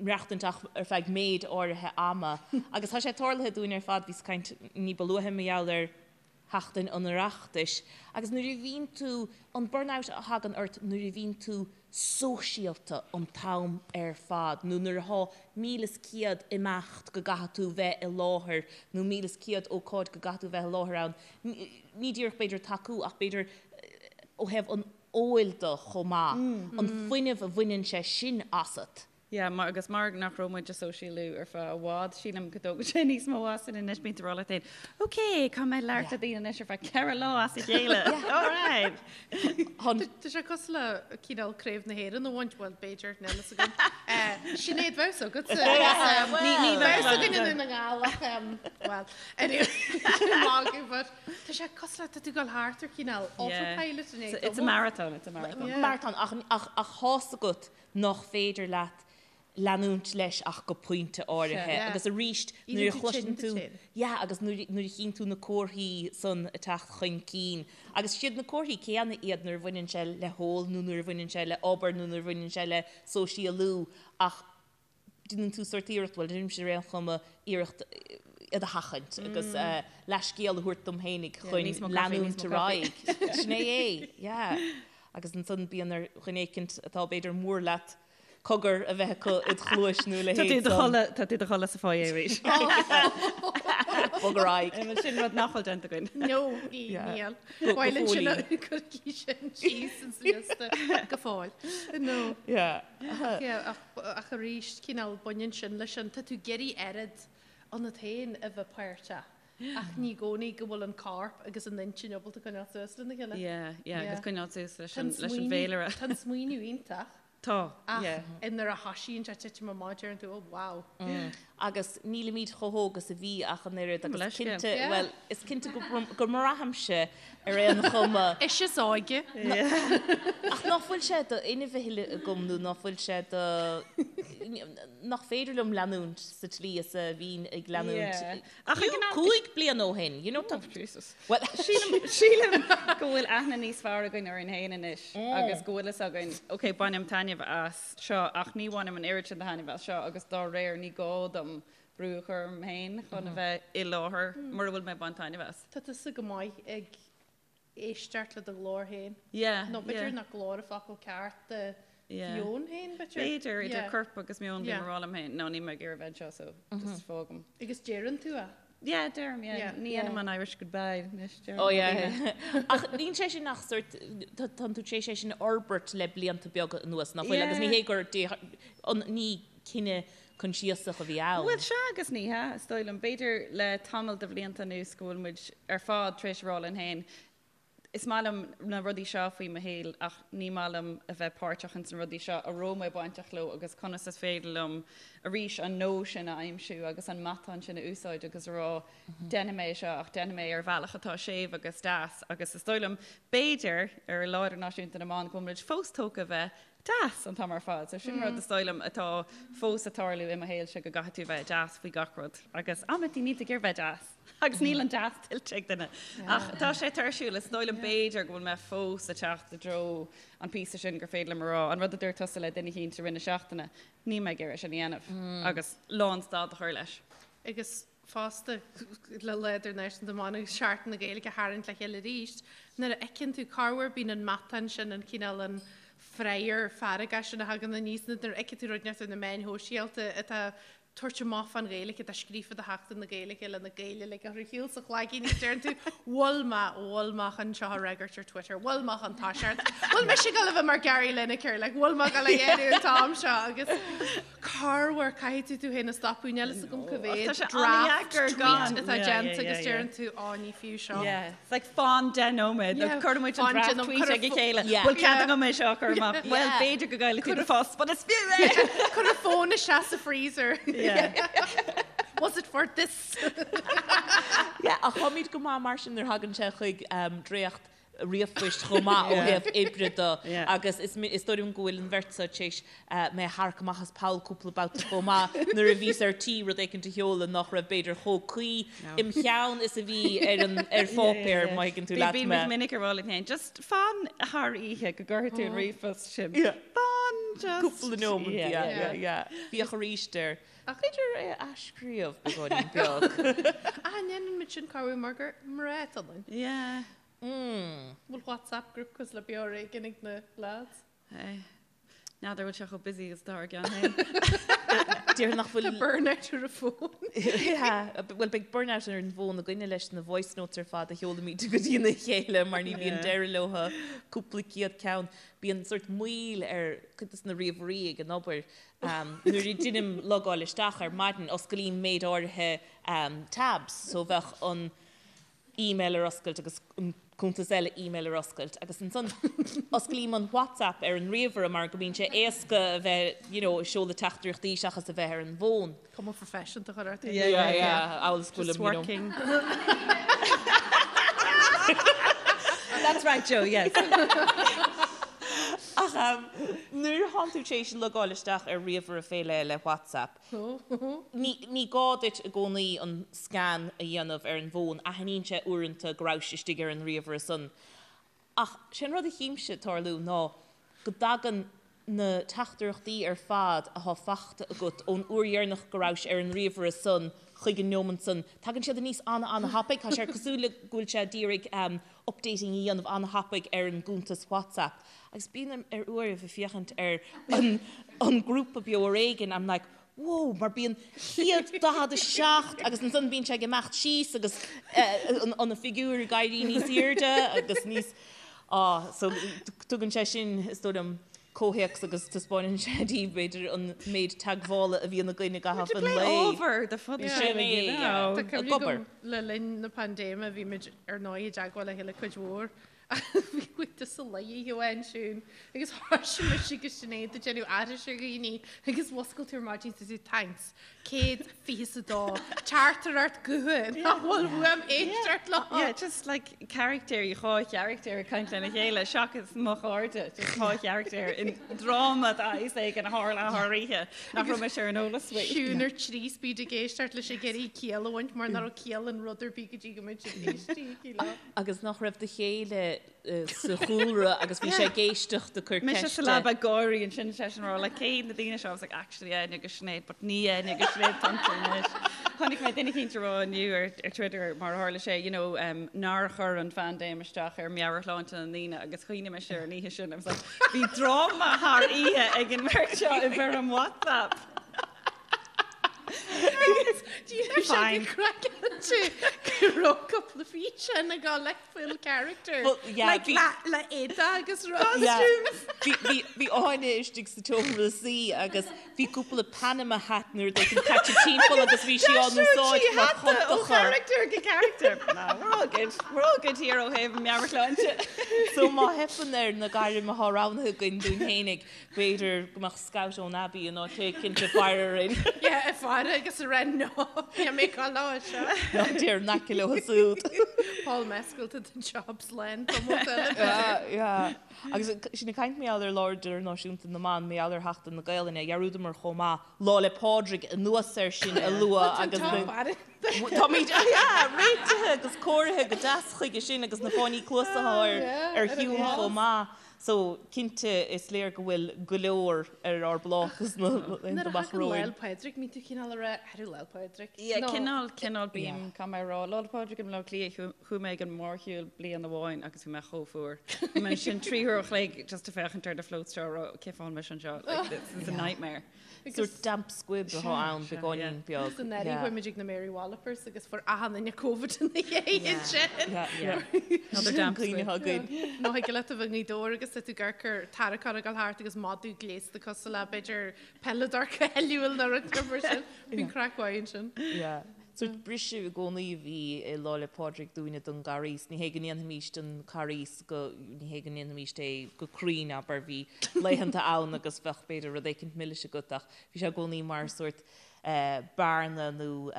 maireachtaint ach ar feadh méid áirithe ama. Agus tá sé tarlaithe dúinn ar fad, bhíos ag caint ní ba luaithe mar gheall ar sheachtain an Oireachtais, agus nuair a bhíonn tú, an burnout a thagann ort nuair a bhíonn tú sóisialta an t-am ar fad nó nuair athá 1100 imeacht go gcaithfidh tú bheith i láthair nó 1100 ócáid go gcaithfidh tú bheith i láthair ann, ní díreach b'fhéidir tacú ach b'fhéidir ó thaobh an óil de chomh maith, an fuinneamh a bhaineann sé sin asat. Yeah, mar, agus mar nach raibh muid ag sóisialú ar feadh i bhfad, sílim go dtógann sé níos mó asainn anois, bíonn tú ag rá leat féin, ok, caithfidh mé labhairt le daoine anois ar feadh 4 lá as a chéile, alright! Tá sé cosúil le cineál Craobh na hÉireann a bhaint, bhuel, b'fhéidir, níl fhios agam. Sinéad, bheadh fhios agatsa. Ní bheadh fhios againn i nDún na nGall ach, bhuel, anyway, magadh, but tá sé cosúil le, tá tú ag dul thart ar chineál autopilot in It's a marathon, it's a marathon. Marathon, ach, ach, ach tá's agat nach féidir leat leanúint leis ach go pointe áirithe agus arís nuair a chloiseann tú yeah agus nuair a chíonn tú na comharthaí san ag teacht chun cinn agus siad na comharthaí céanna iad nuair a bhaineann sé le hól nó nuair a bhaineann sé le obair nó nuair a bhaineann sé le sóisialú ach déanann tú sórt iarracht, bhuel déanaimse ar aon chuma, iarracht iad a sheachaint agus leathscéal a thabhairt dom fhéinig chun leanúint ar aghaidh. Sin é é, yeah. Agus ansan bíonn ar dhuine éicint atá b'fhéidir mór leat cogar a bheith acu id chluais nó a leithéid san. Tá tú i do chodladh sa foyer arís. Bog ar aghaidh. Sin rud nach bhfuil déanta againn. No, níl. Bhuel ansin cuirigí sin síos sa liosta go fóill. No. Ach arís, cineál baineann sin leis an, tá tú ag iarraidh oiread ionat féin a bheith páirteach. Ach ní i gcónaí go bhfuil an corp agus an intinn ábalta coinneáil suas lena chéile. Yeah, yeah, agus coinneáil suas leis an leis an bhféilire. Tá an smaoineamh iontach. Tá, yeah. Ach nuair a thosaíonn sé titim amach deireann tú, oh wow. Agus nílimid chomh hóg is a bhí ach an oiread agus cinnte, bhuel, is cinnte go mbraithimse ar aon chuma. Is is óige. Ach ná fuil sé d'fhuinneamh a thuilleadh agam nó ná fuil sé de, nach féidir liom leanúint sa tslí is a bhínn ag leanúint. Ach ag an am. 5 bliana ó shin, you know, tá. Oh, Jesus. Well, sílim, sílim go bhfuil aithne níos fearr againn orainn féin anois agus go bhfuil fhios againn, ok, bainim taitneamh as seo ach ní bhainim an oiread sin de thaitneamh as seo agus dá réir ní gá dom brú a chur orm féin chun a bheith i láthair mura bhfuil mé ag baint taitneamh as. Tá tusa go maith ag éisteacht le do ghlór féin. Yeah, Nó b'fhéidir nach glór an focal ceart do mheon féin, b'fhéidir? B'fhéidir, idir corp agus meon bím ag rá liom féin, no, níl mé ag iarraidh bheith anseo so just fágaim. Agus deireann tú é? Yeah, deirim, yeah. Ní dhéanaim an Irish goodbye anois, deirim. Oh yeah. Ach níl sé sin ach sort, tánn tú tar éis é sin a fhorbairt le blianta beaga anuas, nach bhfuil? Agus ní hé gur, ní cinneadh coinsiasach a bhí ann. Bhuel, sea agus ní hea, is dóigh liom. B'fhéidir le tamall de bhlianta anuas go bhfuil muid ar fad tar éis a rá linn féin, is maith liom na rudaí seo faoi mo shaol ach ní maith liom a bheith páirteach ins na rudaí seo a raibh mé bainteach leo agus conas is féidir liom arís an no sin a aimsiú agus an matán sin a úsáid agus a rá déanfaidh mé é seo ach déanfaidh mé é ar bhealach atá séimh agus deas agus is dóigh liom b'fhéidir ar Lá Idirnáisiúnta na mBan go bhfuil muid fós tógtha a bheith deas an t-am ar fad. So sin rud is dóigh liom atá fós ag tarlú i mo shaolse go gcaithfidh tú bheith deas faoi gach rud agus amantaí níl tú ag iarraidh bheith deas agus níl an deas tuillte ag duine. Ach tá sé tuirsiúil, is dóigh liom b'fhéidir go bhfuil mé fós ag teacht i dtreo an píosa sin gur féidir liom a rá an rud a dúirt tusa le duine eicínt i rith na seachtaine, níl mé ag iarraidh sin a dhéanamh agus lán stad a chur leis. Agus fosta le Lá Idirnáisiúnta na mBan agus Seachtain na Gaeilge a tharraingt le chéile arís, nuair a fheiceann tú corruair bíonn an matán sin, an cineál an frayeur fearga sin a thagann aníos, nuair a fheiceann tú rud inteacht ar na meáin shóisialta atá. tabhairt amach fán Ghaeilge atá scríofa do Sheachtain na Gaeilge le na Gaeil uilig a chur ar shiúl sa chlaigín agus deireann tú bhfuil mé, bhfuil mé chun seo a fhreagairt ar Twitter, bhfuil mé chun toiseacht, bhfuil mise ag dul a bheith mar Gary Lineker, like bhfuil mé ag dul a dhéanamh an t-am seo agus corruair caithfidh tú tú féin a stopadh, níl fhios agam cá mhéad Tá sé draft an-deacair tweet gan. atá Yeah, déanta yeah, agus yeah, deireann tú á ní fiú seo. Yeah, it's like fan 10 nóiméad, Yeah, cuireann muid an fan draft deich nóiméad, tweet cuir a ag a fo- chéile. Yeah. Bhfuil cead Yeah. agam é seo a chur amach? Well, Yeah. b'fhéidir go gcaillfidh tú do phost, but is fiú é! Cuir an fón isteach sa freezer. Yeah. Was it for this? Yeah, ach táimid go maith mar sin nuair a thagann sé chuig um, dréacht ríomhphoist chomh maith ó thaobh oibre de agus is is dóigh liom go bhfuil an bheirt seo tar éis mé a tharrac amach as poll cúpla babhta chomh maith nuair a bhíos ar tí rud éicint a sheoladh nach raibh b'fhéidir chomh cuí im cheann is a bhí ar an ar pháipéar má thuigeann tú leat mé. Bímid minic ag rá linn féin, just fan thar oíche go gcuirfidh tú an ríomhphost sin. Fan just. Cúpla nóiméad, yeah, yeah, yeah. Féach arís air. B'fhéidir é a athscríobh beagáinín beag. Ah, ndéanann muid sin corruair mar gur mná atá ionainn. Yeah. Mm. Bhfuil WhatsApp group cosúil le Beo Ar Éigean ag na lads? Hey. N'fheadar bhfuil sé chomh busy agus atá ár gceann féin. Déarfainn nach bhfuil. Tá burnout ar an bhfón. Yeah. Bhuel beidh burnout ar an bhfón againne leis na voice notes ar fad a sheolaimid go dtína chéile mar ní bhíonn deireadh leo cúpla céad ceann. Bíonn sórt moill ar cuid de na ríomhairí ag an obair Nuair a deinim logáil isteach ar maidin, osclaím méid áirithe tabs, so bheadh an email ar oscailt agus an cuntas eile email ar oscailt agus ansan osclaím an WhatsApp ar an ríomhaire mar go mbíonn sé éasca a bheith, you know, ag seoladh teachtaireachtaí seachas a bheith ar an bhfón. Cuma phroifisiúnta a chur ort. Yeah, yeah, yeah, amhail is go Just bhfuilim, you know. working. That's right, Joe, yes. Ach nuair atánn tú tar éis logáil isteach ar ríomhaire fé leith le WhatsApp, ní, ní gá duit i gcónaí an scan a dhéanamh ar an bhfón, aithníonn sé uaireanta go rabhais istigh ar an ríomhaire san. Ach sé an rud a chímse ag tarlú ná go dtagann na teachtaireachtaí ar fad athá fachta agat ón uair dheireanach go rabhais ar an ríomhaire san chuig an neomant san, tagann siad aníos ana-ana-thapaidh. Tá sé cosúil le go bhfuil sé ag iarraidh updating a dhéanamh ana-thapaidh ar an gcuntas WhatsApp. Agus bíonn ar uairibh ag féachaint ar an an grúpa Beo Ar Éigean, I'm like, whoa, mar bíonn 147 agus ansan bíonn sé ag imeacht síos agus an figiúr ag éirí níos airde agus níos, ah, so tugann sé sin, is dóigh liom, comhthéacs agus taispeánann sé daoibh, b'fhéidir, an méid teagmhála a bhíonn againn i gcaitheamh an lae. Ábhar do fud Sin é, yeah. Tá Ag cuimhne obair. agam le linn na paindéime bhí muid ar ndóigh i dteagmháil le chéile cuid mhór Bhí muid sa luí amháin siún agus thoisigh mise agus Sinéad ag déanamh aithris ar dhaoine agus mhuscail tú ar maidin is tú thanks 122 teachtaireacht gutha nach bhfuil uaim éisteacht leo. Yeah, just like caractéirí, dhá charactéir ag caint lena chéile seachas mo chairde, just dhá charactéir i ndráma de shaghas éigin a tharla thar oíche nach raibh mise ar an eolas faoi. Siún ar 3 speed ag éisteacht leis ag iarraidh ciall a bhaint mar nach raibh ciall in rud ar bith go dtí go mbeidh siad éistí leo. Agus nach raibh do chéile sa chúlra agus bhí sé ag éisteacht ag cur Mise ceiste. sa leaba ag gáirí ansin seisean ag rá like cé na daoine seo? I was like actually Áine agus Sinéad but ní Áine agus Sinéad atá iontu anois. Chonaic mé duine eicínt ag rá inniu ar ar Twitter mar a tharla sé you know um, nár chuir an phaindéim isteach ar meabhairshláinte na ndaoine agus chuimhnigh mise ar an oíche sin I was like bhí dráma thar oíche ag an mbeirt seo i bhfoirm WhatsApp. Fine. Craiceáilte go raibh cúpla físeán ag dul like full character. Well, yeah, Like bhí- le le éide agus Yeah. costumes. Bhí bhí bhí Áine istigh sa tseomra suí agus bhí cúpla Panama hat nó rud éigin caite timpeall agus bhí sí á n-úsáid mar Ó chuntacha. character go character. No, we're all good. We're all good here ó thaobh meabhairshláinte. So má theipeann ar na gairm atá roghnaithe againn dúinn fhéinig, B'fhéidir go mbeadh scout ón Abbey in áit éicint ag faire orainn. Yeah, ag faire agus ag rá no, níl mé ag dul leo seo. Ná téir in aice leo siúd. Paul Mescal tá an job slán tamall eile. Yeah, yeah. Agus sinn ag caint mar gheall ar Lá Idirnáisiúnta na mBan, mar gheall ar Sheachtain na Gaelainne, dhearúdamar chomh maith Lá 'le Pádraig anuas air sin a lua agus na. Táimid, yeah, réitithe agus cóirithe go deas chuige sin agus na fáinní cluasa ar ar shiúl chomh maith. So, cinnte, is léir go bhfuil go leor ar ár bpláta sna laethanta amach Nuair a thagann romhainn. Lá 'le Pádraig, mbíonn tú cineál ag rá, Ar Lá 'le Pádraig? Yeah, cineál, cineál bím, caithfidh mé a rá, Lá 'le Pádraig i mBleá Cliath, chuaigh mé ag an mórshiúl bliain amháin agus bhí mé chomh fuar. Bhí mé ansin 3 uair a chloig just ag féachaint ar na floats seo ag rá, cén fáth a bhfuil mise anseo, like, this is a nightmare. Sórt damp squib atá ann, beagáinín beag. Agus anuraidh chuaigh muid ag na Mary Wallopers agus fuair achan duine Covid ina dhiaidh sin. Another damp squib. Cuimhne againn. Nó thig leat a bheith i nGaoth Dobhair agus tá tú ag amharc ar tarraiceán ag dul thart agus madadh gléasta cosúil le b'fhéidir peileadóir cáiliúil nó rud mar sin. Bíonn craic mhaith ansin. Sórt briseadh i gcónaí a bhí i Lá 'le Pádraig dúinne don gCarghas. Ní hé go ndéanfaimis an Carghas go, ní hé go ndéanfaimis é go cruinn, abair, bhí laethanta ann agus bheadh b'fhéidir rud éicint milis agat ach bhí sé i gcónaí mar sórt bearna nó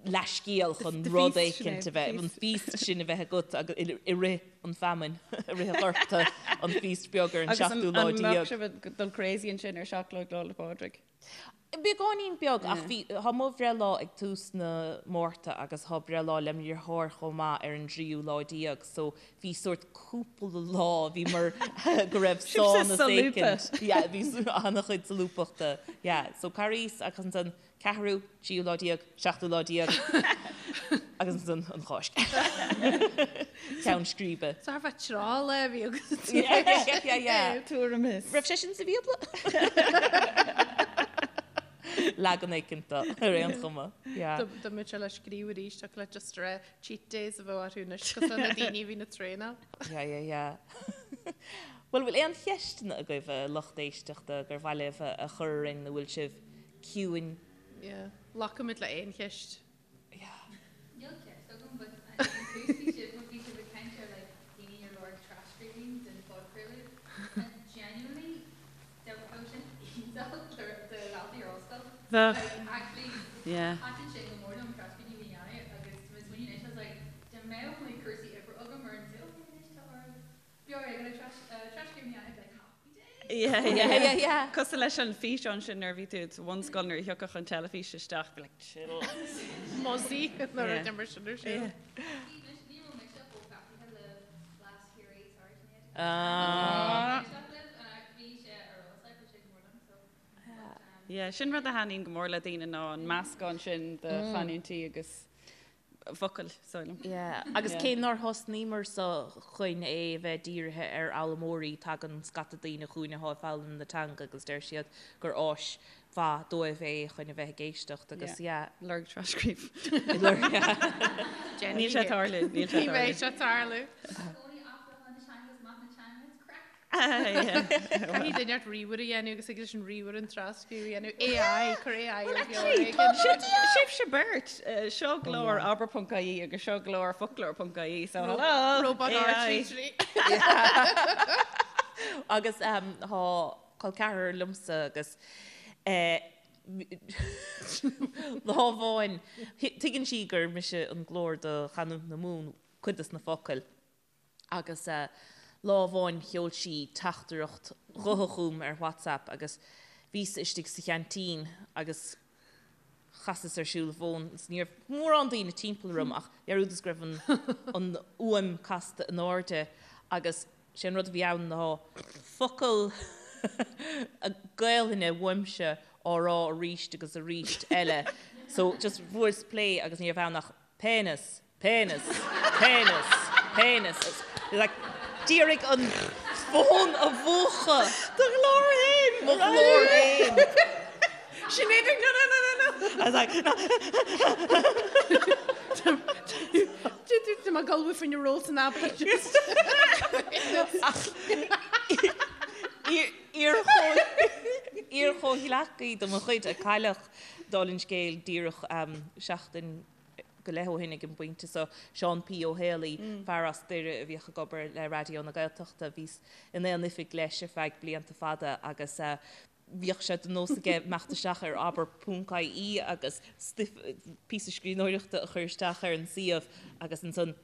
leathscéal chun rud éicint a bheith, an feast sin a bheith agat agus i rith an feamainn, i rith an ghorta, an feast beag ar an seachtú lá déag. Agus an mbeadh sibh ag dul crazy ansin ar seacht lá Lá 'le Pádraig? Beagáinín beag, ach bhí, tá mo bhreithlá ag tús na Márta agus tá breithlá le mo dheartháir chomh maith ar an dtríú lá déag, so bhí sórt cúpla lá, bhí mar go raibh Sibhse sánas solúbtha. éicint. Yeah, bhí an-chuid solúbthachta, yeah. So Carghas agus ansan ceathrú, tríú lá déag, seachtú lá déag agus ansan an Cháisc. Ceann scríbe. So thar feadh tráth lá a bhí agat. Yeah, yeah, yeah, yeah. Tuairim is. Raibh sé sin sa Bhíobla? Leagan éicint de, ar aon chuma. Yeah. Dá mbeadh sé le scríobh arís, thiocfadh leat just a rá cheat days a bheadh orthu anois, cosúil le na daoine a bhíonn ag traenáil. Yeah, yeah, yeah. Bhuel, bhfuil aon cheisteanna agaibh, a lucht éisteachta, gur mhaith libh a chur orainn nó bhfuil sibh ciúin? Yeah. Glacfaimid le aon cheist. Yeah. Níl ceist agam but ag an tús bhí sibh bhí sibh ag caint ar like daoine ar lorg tras-scríbhinn den phodchraoladh and genuinely bheadh sin iontach do dhaltaí ar ollscoil. Bheadh. Like actually Yeah. thaitin sin go mór liom tras-scríbhinn a dhéanamh agus tá mé ag smaoineamh anois I was like dá mbeadh like cúrsaí oibre agam ar an saol okay anois tá oraibh beag éigin tras-scríbhinn a dhéanamh like happy days. Yeah, Yeah, yeah, yeah. Cosúil leis an físeán sin nuair a bhí tú sa bhunscoil nuair a thiocfadh an teilifís isteach, be like, chill. Mozzie nuair a d'imir sin ar siúl. Yeah. Ní raibh mise chomh gafaithe le Blas Chiarraí, sorry Sinéad. Ah. Bhí sé ar eolas like, bhí sé go mór liom so. Yeah, sin rud a thaitníonn go mór le daoine ná an meascán sin de chanúintí agus focail, sílim. Yeah, agus cé nár thosnaíomar sa chun é a bheith dírithe ar fhoghlaimeoirí, tagann scata daoine chugainn atá ag foghlaim na teanga agus deir siad gur áis mhaith dóibh é chun a bheith ag éisteacht agus yeah. Lorg tras-scríobh. Lorg, yeah. Níl sé ag tarlú, níl sé Ní ag bheidh tarlú. sé ag tarlú. Cónaí athbheochan na teanga is maith na teanga, it's craic. Caithfidh duine ort ríomhaire a dhéanamh agus ag leis an ríomhaire an tras-scríobh a dhéanamh. AI, cuir AI ar beo ar éigean. Sibhse beirt, seo glór abair.ie agus seo glór foclóir.ie, so hello! Robot AI. R33. Agus tá col ceathrar liomsa agus lá amháin, tuigeann sí gur mise an glór do chanúint na Mumhan, cuid dos na focail. Agus lá amháin sheol sí teachtaireacht ghutha chugam ar WhatsApp agus bhíos istigh sa cheaintín agus chasas ar siúl an fón agus ní raibh mórán daoine timpeall orm ach dhearúdas go raibh an an fhuaim casta in airde agus sé an rud a bhí ann ná focal Gaelainne uaimse á rá arís agus arís eile so just bhuaileas play agus ní raibh ann ach penis Penis, penis, penis. Like, d'iarraidh an fón a mhúchadh. Do ghlór féin! Mo ghlór féin. Sinéad ag no, no, no, no, no. I was like, no. Tá mé ag ullmhú faoin ról san abair just. Iar-chomhghleacaí de mo chuid a cailleadh dála an scéil díreach seachtain go leith ó shin ag an bpointe so, Seán P. Ó Héalaí, fear as Doire a bhíodh ag obair le Raidió na Gaeltachta. Bhíos in aon oifig leis ar feadh blianta fada agus bhíodh sé de nós aige imeacht isteach ar abair ponc ie agus stuif, píosa scríbhneoireachta a chur isteach ar an suíomh agus ansan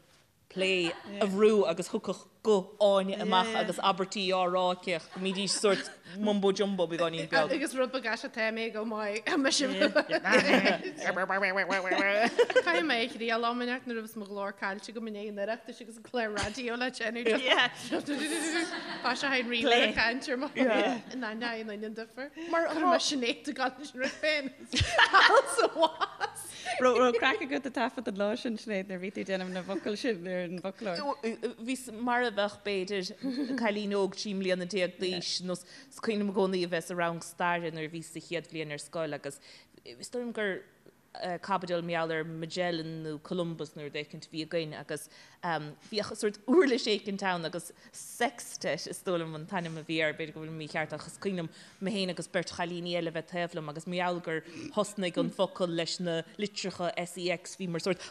play a bhrú agus thiocfadh. guth Áine amach agus abairtí á rá aici ach go mbídís sórt mumbo jumbo beagáinín beag. Agus rud beag aisteach tá mé go maith mise. Caithfidh mé a thriail am inteacht nuair a bheas mo ghlór caillte agam i ndiaidh an Oireachtais agus an clár raidió le déanamh. Tá sé féin ríomhaire ag caint ar mo in ainneoin an an difear. Mar chuir mé Sinéad ag gabháil leis an rud féin. Sa bhás. Raibh craic agat ag taifead an lá sin, Sinéad, nuair a bhí tú ag déanamh na bhfocal sin ar an bhfoclóir? Bhíos mar a bheadh, b'fhéidir, cailín óg 13 mbliana d'aois, nó is cuimhin liom i gcónaí a bheith sa rang staire nuair a bhíos sa chéad bhliain ar scoil agus is dóigh liom gur caibidil mar gheall ar Magellan nó Columbus nó rud éicint a bhí againn agus bhíodh sórt uirlis éicint ann agus sextet is dóigh liom an t-ainm a bhí air, b'fhéidir go bhfuilim mícheart ach is cuimhin liom mé féin agus beirt chailíní eile a bheith taobh liom agus mar gheall gur thosnaigh an focal leis na litreacha SEX bhíomar sórt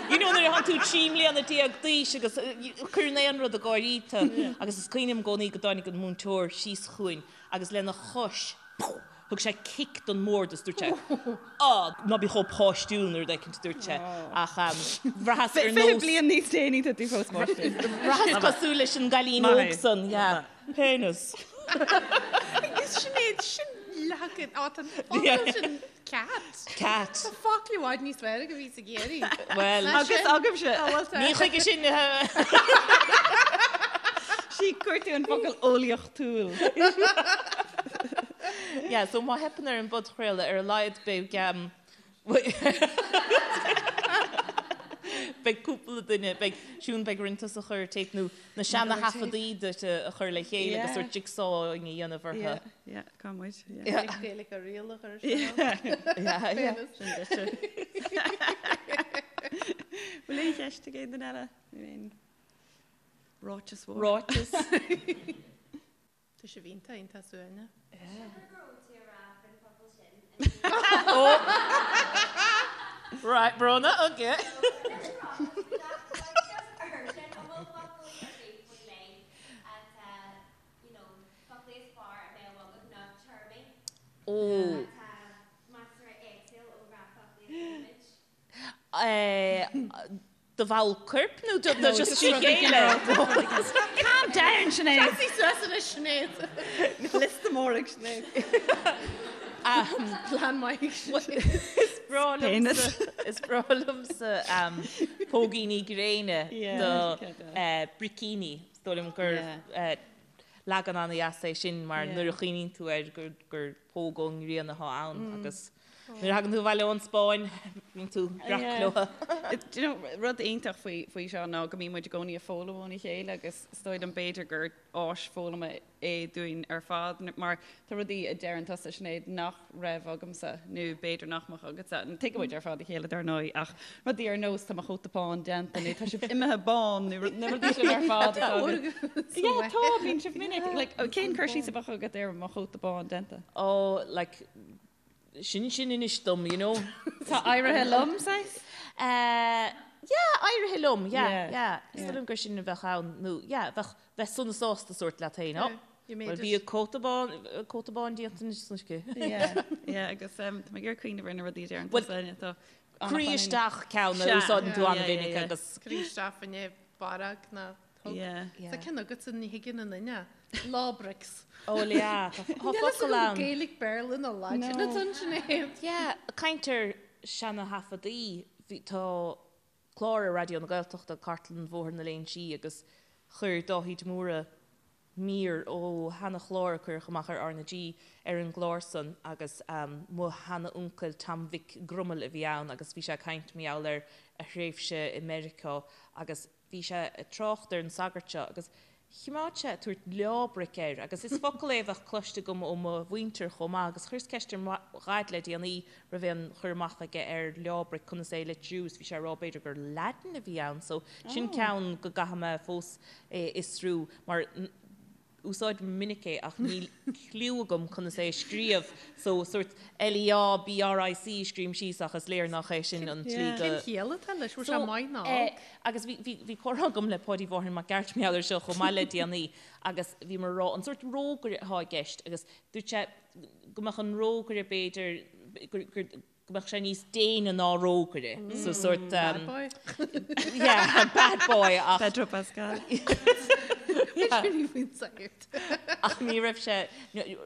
you know nuair atánn tú 13 mbliana d'aois agus cuireann aon rud ag gáirí tú agus is cuimhin liom i gcónaí go dtáinig an múinteoir síos chugainn agus lena chois thug sé cic don mbord is dúirt sé Á, ná bí chomh páistiúil nó rud éicint a dúirt sé ach bhraitheas ar nós. 20 bliain níos déanaí tá tú fós páistiúil. Bhraitheas cosúil leis an gcailín óg san, yeah. Penis. Agus Sinéad, sin leagan, á tá an focal sin cat. Cat. Tá focal i bhfad níos fearr agam a bhíos ag iarraidh. Bhuel. Agus agaibhse. Ní chuige sin. Sí, chuir tú an focal eolaíochtúil. Yeah, so má theipeann ar an bpodchraoladh, ar a laghad beidh beidh cúpla duine, beidh Siún, beidh orainn tusa a chur ar téip nó na seana-thaifeadaí duit a chur le chéile agus sórt jigsaw a dhéanamh orthu. Yeah, yeah, cá muid. Yeah. Gaeilge a riail a chur isteach. Yeah, yeah. Sin duitse. Bhfuil aon cheist ag aon duine eile? Nó aon ráiteas mhór? Ráiteas. Tá sibh iontach, iontach suaimhneach. Sílim go raibh tú ag rá faoin focal sin. Right, Bróna, okay. Ó. Do bhall coirp nó do just trí chéile? Calm down, Sinéad. Seasaigh suas anois, Sinéad. Liosta mór ag Sinéad. Plean maith ag Sinéad. Is breá liomsa, is breá liomsa póigíní gréine do bricíní. Is dóigh liom gur leagan an-dheas é sin mar nuair a chuimhníonn tú air gur póg ón ngrian atá ann agus Nuair a thagann tú abhaile ón Spáinn, bíonn tú breac leo. Do you know, rud iontach faoi, faoi seo ná go mbíonn muid i gcónaí ag foghlaim óna chéile agus is dóigh liom b'fhéidir gur áis foghlama é dúinn ar fad mar tá rudaí a deireann tusa, Sinéad, nach raibh agamsa nó b'fhéidir nach mbeadh agatsa. Tuigeann muid ar fad a chéile dar ndóigh ach rudaí ar nós tá mo chóta bán déanta nó tá sibh imithe bán nó na rudaí sin ar fad atá agat. Yeah, tá, bíonn sibh minic. Like, cén cur síos a bheadh agat ar mo chóta bán déanta? Oh, like, sin sin anois dom, you know. Tá éirithe liom, saghas? Eh, yeah, éirithe liom, yeah, yeah. Is dóigh liom gur sin a bheadh ann, nó yeah, bheadh, bheith sona sásta sórt leat féin, oh, well bhí cóta bán, cóta bán déanta anois san uisce. Yeah, yeah, agus tá mé ag iarraidh cuimhneamh ar na rudaí a deireann tusa, tá Croí isteach ceann a úsáideann tú an-mhinic agus. Croí isteach fá choinne barróg ná thug. Tá ceann agatsa ní thuigeann aon duine. Lábrix. Ó yeah, tá focal ann. Gaeilge, Béarla nó Laidin atá ansin é. Yeah, caint ar seana-thaifeadaí, tá clár ar Raidió na Gaeltachta, Cartlann Bhóthar na Léinsí agus chuir Dáithí de Mórdha mír ó sheana-chlár a cuireadh amach ar R na G ar an gclár san agus mo sheana-uncail Tom Mhic Grumail a bhí ann agus bhí sé ag caint mar gheall ar a thréimhse i Meiriceá agus bhí sé ag trácht ar an sagart seo agus choimeád sé ag tabhairt leábric air agus is focal é a bheadh cloiste agam ó mo mhuintir chomh maith agus chuireas ceist ar mo dhaid le déanaí raibh aon chur amach aige ar leábric conas é a litriú is bhí sé ag rá b'fhéidir gur Laidin a bhí ann so sin ceann go gcaithfidh mé fós é a fhiosrú mar úsáidim minic é ach níl cliú agam conas é a scríobh so sórt L-E-Á-B-R-I-C a scríobhaim síos ach is léir nach é sin an tslí go Cén chiall atá leis? Bhfuil sé maith nó olc? Agus bhí, bhí, bhí comhrá agam le Páidí Mháirtín Mac Gearailt mar gheall air seo chomh maith le déanaí agus bhíomar ag rá an sórt rógaire atá i gceist agus dúirt sé go mbeadh an rógaire b'fhéidir gur, gur. go mbeadh sé níos déine ná rógaire. So sort Bad boy. Yeah, bad boy ach Pedro Pascal. Ach ní raibh sé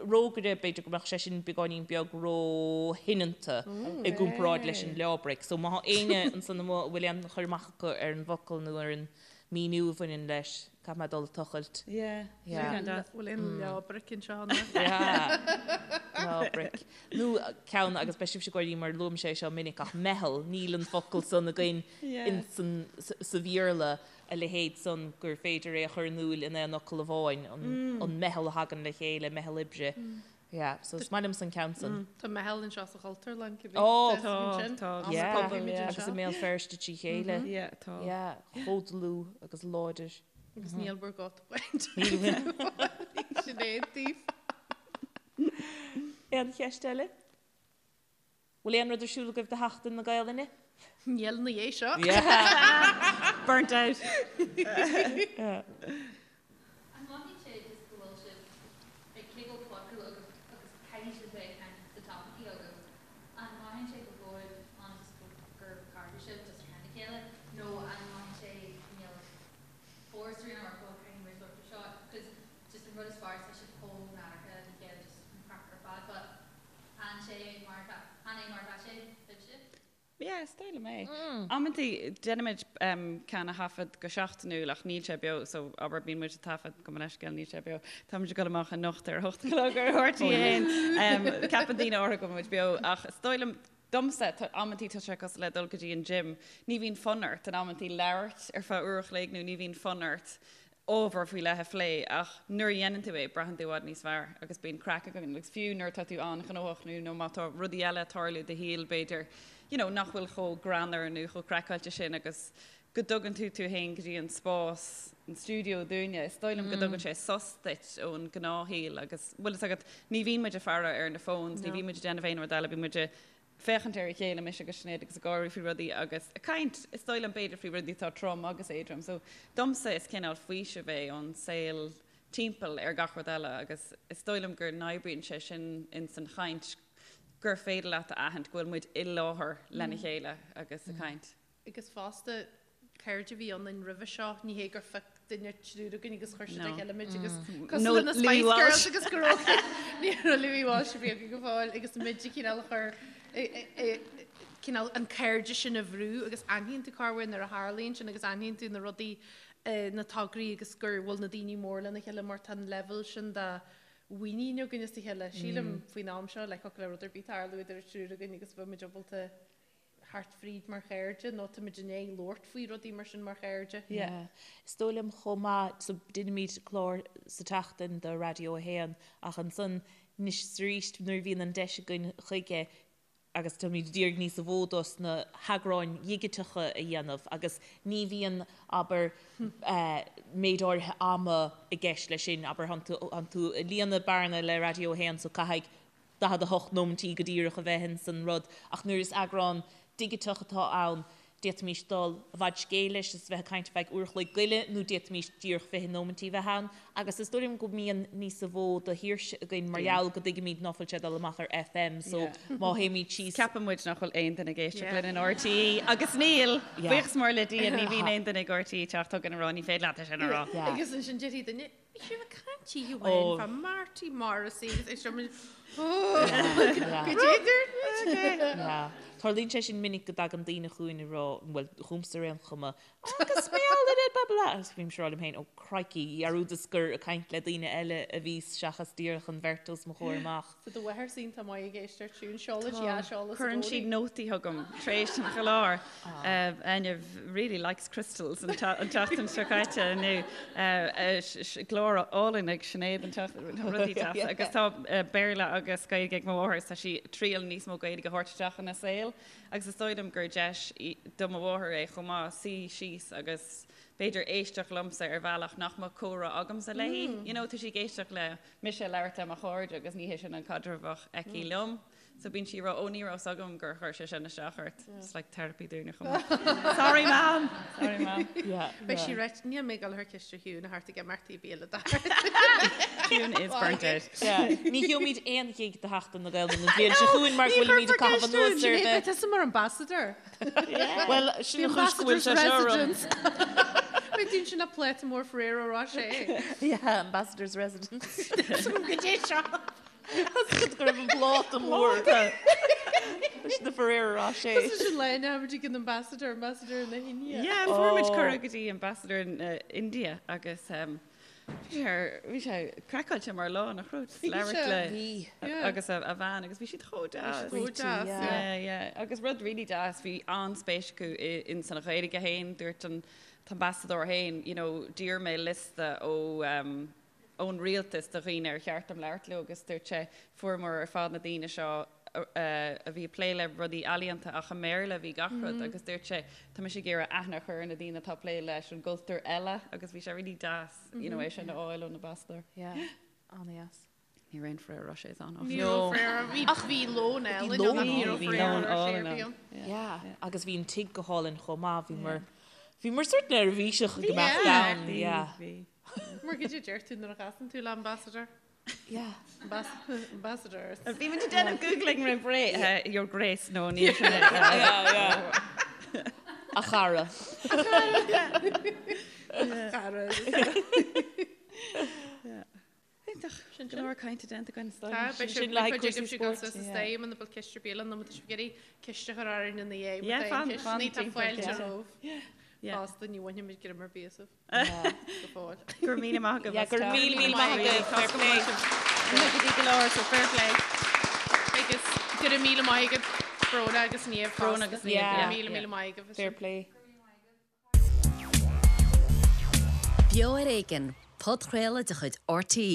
rógaire b'fhéidir go mbeadh sé sin beagáinín beag róshoineanta i gcomparáid leis an leábraic. So má tá éinne ansan amuigh a bhfuil aon chur amach acu ar an bhfocal nó ar an míniú a bhaineann leis, caithfidh mé dul ag tochailt. Yeah. Yeah. Bhfuil aon leábraic anseo ann? Yeah. Leábraic. Nó ceann, agus beidh sibhse ag gáirí mar luaim sé seo minic, ach meitheal, níl an focal san againn in sa Bhéarla, a leithéid san gur féidir é a chur in iúil in aon fhocal amháin, an meitheal a thagann le chéile, meitheal oibre. Yeah, so is maith liomsa an ceann san. Tá meitheal anseo sa Chultúrlann, cibé. Ó, tá, tá. Yeah, agus i mBéal Feirste trí chéile. Yeah, tá. Yeah, chomh dlúth agus láidir. Agus níl bhur gcóta bainte. Sinéad daoibh. Aon cheist eile? Bhfuil aon rud ar siúl agaibh do Sheachtain na Gaelainne? Níl ina dhiaidh seo. Burnt out. An mothaíonn sé just go bhfuil sibh ag cé go bhfuil podchraoladh agaibh agus caithfidh sibh bheith ag caint tá topaicí agaibh, an mothaíonn sé go bhfuil ann just gur cairde sibh just ar a chéile nó an mothaíonn sé níl force ar aon ort go caithfidh muid labhairt faoi seo 'cause just an rud is fearr is tá sibh chomh nádúrtha le chéile just an craic ar fad but an sé mar atá an é mar atá sé libhse? Yeah, is dóigh liom é. Amantaí déanaimid ceann a thaifead go seachtainiúil ach níl sé beo so abair bíonn muid ag taifead gabh mo leithscéal níl sé beo. Táimid ag dul amach anocht ar a hocht a chlog ar RTÉ 1. Ceapann daoine áirithe go bhfuil muid beo ach is dóigh liom domsa amantaí tá sé cosúil le dul go dtí an gym. Ní bhíonn fonn ort in amantaí labhairt ar feadh uair a chloig nó ní bhíonn fonn ort ábhar faoi leith a phlé ach nuair a dhéanann tú é, braitheann tú i bhfad níos fearr agus bíonn craic againn agus fiú nuair atá tú an-ghnóthach nó nó má tá rudaí eile ag tarlú i do shaol b'fhéidir you know nach bhfuil chomh greannmhar nó chomh craiceáilte sin agus go dtugann tú tú féin go dtí an spás, an stiúideo dúinne, is dóigh liom go dtugann sé sos duit ón ngnáthshaol agus bhfuil fhios agat ní bhíonn muid ag faire ar na phones, ní bhíonn muid ag déanamh aon rud eile, bíonn muid ag féachaint ar a chéile, mise agus Sinéad, agus ag gáirí faoi rudaí agus ag caint, is dóigh liom, b'fhéidir, faoi rudaí atá trom agus éadrom. So, domsa, is cineál faoiseamh é ón saol timpeall ar gach rud eile agus is dóigh liom go n-oibríonn sé sin ins an chaint, gur féidir leat a aithint go bhfuil muid i láthair lena chéile agus ag caint. Agus fosta, cairde a bhí ionainn roimhe seo, ní hé gur phioc duine triúr againn agus chuir siad le chéile muid agus cosúil le na Spice Girls agus go raibh ní raibh Louis Walsh a bhí againn go fóill agus muid a chineál a chur cineál an cairde sin a bhrú agus aithníonn tú corruair nuair a tharlaíonn sin agus aithníonn tú na rudaí na tograí agus gur bhfuil na daoine mór lena chéile mar tá an leibhéal sin de mhuinín againn as a chéile. Sílim faoin am seo le thiocfadh le rud ar bith tarlú idir an triúr againn agus bheadh muid ábalta thart fríd mar chairde nó táimid i ndiaidh labhairt faoi rudaí mar sin mar chairde. Yeah. Is dóigh liom chomh maith, so deinimid clár sa tseachtain do Raidió 1 ach ansan anois is arís nuair a bhíonn an deis againn chuige agus táimid ag iarraidh níos mó dos na heagráin dhigiteacha a dhéanamh agus ní bhíonn, abair, méid áirithe ama i gceist leis sin, abair, tánn tú ag líonadh bearna le Raidió 1 so caithfidh 48 nóimintí go díreach a bheith ins an rud, ach nuair is eagrán digiteach atá ann, d'fhéadfaimis dul i bhfad scéil leis is bheith ag caint ar feadh uair a chloig go leith nó d'fhéadfaimis díreach 20 nóimintí a bheith ann agus is dóigh liom go mbíonn níosa mhó de shaoirse againn mar gheall go dtuigimid ná fuil sé ag dul amach ar FM so má théimid síos. Ceapann muid nach bhfuil aon duine ag éisteacht linn in RTÉ agus níl! Buíochas mór le Dia ní bhíonn aon duine ag RTÉ ag teacht chugainn ag rá ní féidir leat é sin a rá. Agus ansin déarfaidh duine, Bhí sibh ag caint oíche amháin fá Marty Morrissey agus é seo muid go dtéidir. Tarlaíonn sé sin minic go dtagann daoine chugainn ag rá, bhuel, chugamsa ar aon chuma, agus mar gheall ar blah blah agus bímse ag rá liom féin, oh crikey, dhearúdas gur ag caint le daoine eile a bhíos seachas díreach an bheirt os mo chomhair amach. Tá do mháthair iontach maith ag éisteacht siún, seolann sí aiseolas i Cuireann sí gcónaí. nótaí chugam tar éis an chláir. Áine really likes crystals an tseachtain seo caite nó glór álainn ag Sinéad an tseachtain, tá rudaí deasa. Agus tá Béarla agus Gaeilge ag mo mháthair is tá sí ag triail níos mó Gaeilge a thabhairt isteach ina saol agus is dóigh liom gur deis do mo mháthair é chomh maith suí síos agus b'fhéidir éisteacht liomsa ar bhealach nach mbeadh comhrá agamsa léi. You know, tá sí ag éisteacht le mise ag labhairt le mo chairde agus ní hé sin an caidreamh a bheadh aici liom. So bíonn sí ag rá, ó ní raibh 's agam gur chuir sé sin isteach ort. It's like therapy dúinne chomh maith. Sorry mam! Sorry mam. Yeah. Beidh sí right, níl mé ag dul thar ciste Chiúin a thart ag imeachtaí béile dart. Chiúin is burnt out. Yeah. Ní gheobhaimid aon ghig do Sheachtain na Gaeilge an bhliain seo chugainn mar go bhfuilimid ag caitheamh anuas ar Sinéad, beidh tusa mar ambassador. Bhuel, sin an chúis go bhfuil sé seo orm. Beidh tú ansin le pláta mór Ferrero Rocher. Yeah, ambassador's residence. Go dtí seo. Go raibh an pláta mór leis na Ferrero Rocher. Is sin le muid ag an ambassador, ambassador na hIndia. Yeah, fuair muid cuireadh go dtí ambassador na India agus bhí sé bhí sé craiceáilte mar lá nach raibh just labhairt le Yeah. agus a a bhean agus bhí siad chomh deas. Chomh deas, yeah. Yeah, yeah. Agus rud really deas, bhí an-spéis acu i in san Ghaeilge féin, dúirt an t-ambasadóir féin, you know, d'iarr mé liosta ó um, ón rialtas de dhaoine ar cheart dom labhairt leo agus dúirt sé, fuaireamar ar fad na daoine seo a bhí ag plé le rudaí ealaíonta ach i mBéarla a bhí gach rud agus dúirt sé, tá mise ag iarraidh aithne a chur ar na daoine atá ag plé leis an gcultúr eile agus bhí sé really deas you know, é sin a fháil ón ambasadóir. Yeah, an-dheas. Ní raibh aon Ferrero Rochers ann áfach. Ní raibh Ferrero, bhí ach bhí lón álainn ann, ní raibh Ferrero Rocher ar bith ann. Yeah, agus bhí an tigh go hálainn chomh maith, bhíomar, bhíomar sort neirbhíseach go mbeadh ann, yeah. Bhí. Mar goidé a deir tú nuair a chasann tú le ambassador? Yeah. Ambassador. Bhí muid ag déanamh googling roimh ré, your grace, no, níl sin é. Yeah, yeah. A chara. A chara. Iontach. Sin go leor cainte déanta againn. Tá, beidh Sin sibh le haghaidh cuid cúrsaí agaibh sibh spóirt, sa yeah. stadium ina bhfuil ciste béile nó má tá sibh ag iarraidh ceist a chur orainn ina dhiaidh, má Yeah, tá aon fan- ceisteanna, fan tá timpeall, fáilte yeah. romhaibh. Yeah. Fosta ní bhainfimid greim ar bith asaibh go fóill. Go raibh míle maith agaibh Yeah, as go raibh teacht. míle míle maith agaibh. Fair play. Go dtí go leor, so fair play. Agus go raibh míle maith agaibh Bróna agus Niamh Bróna fosta. agus Niamh, Yeah. Go yeah, raibh míle yeah. míle maith agaibh as Fair sin. play. Beo ar Éigean, podchraoladh de chuid RTÉ.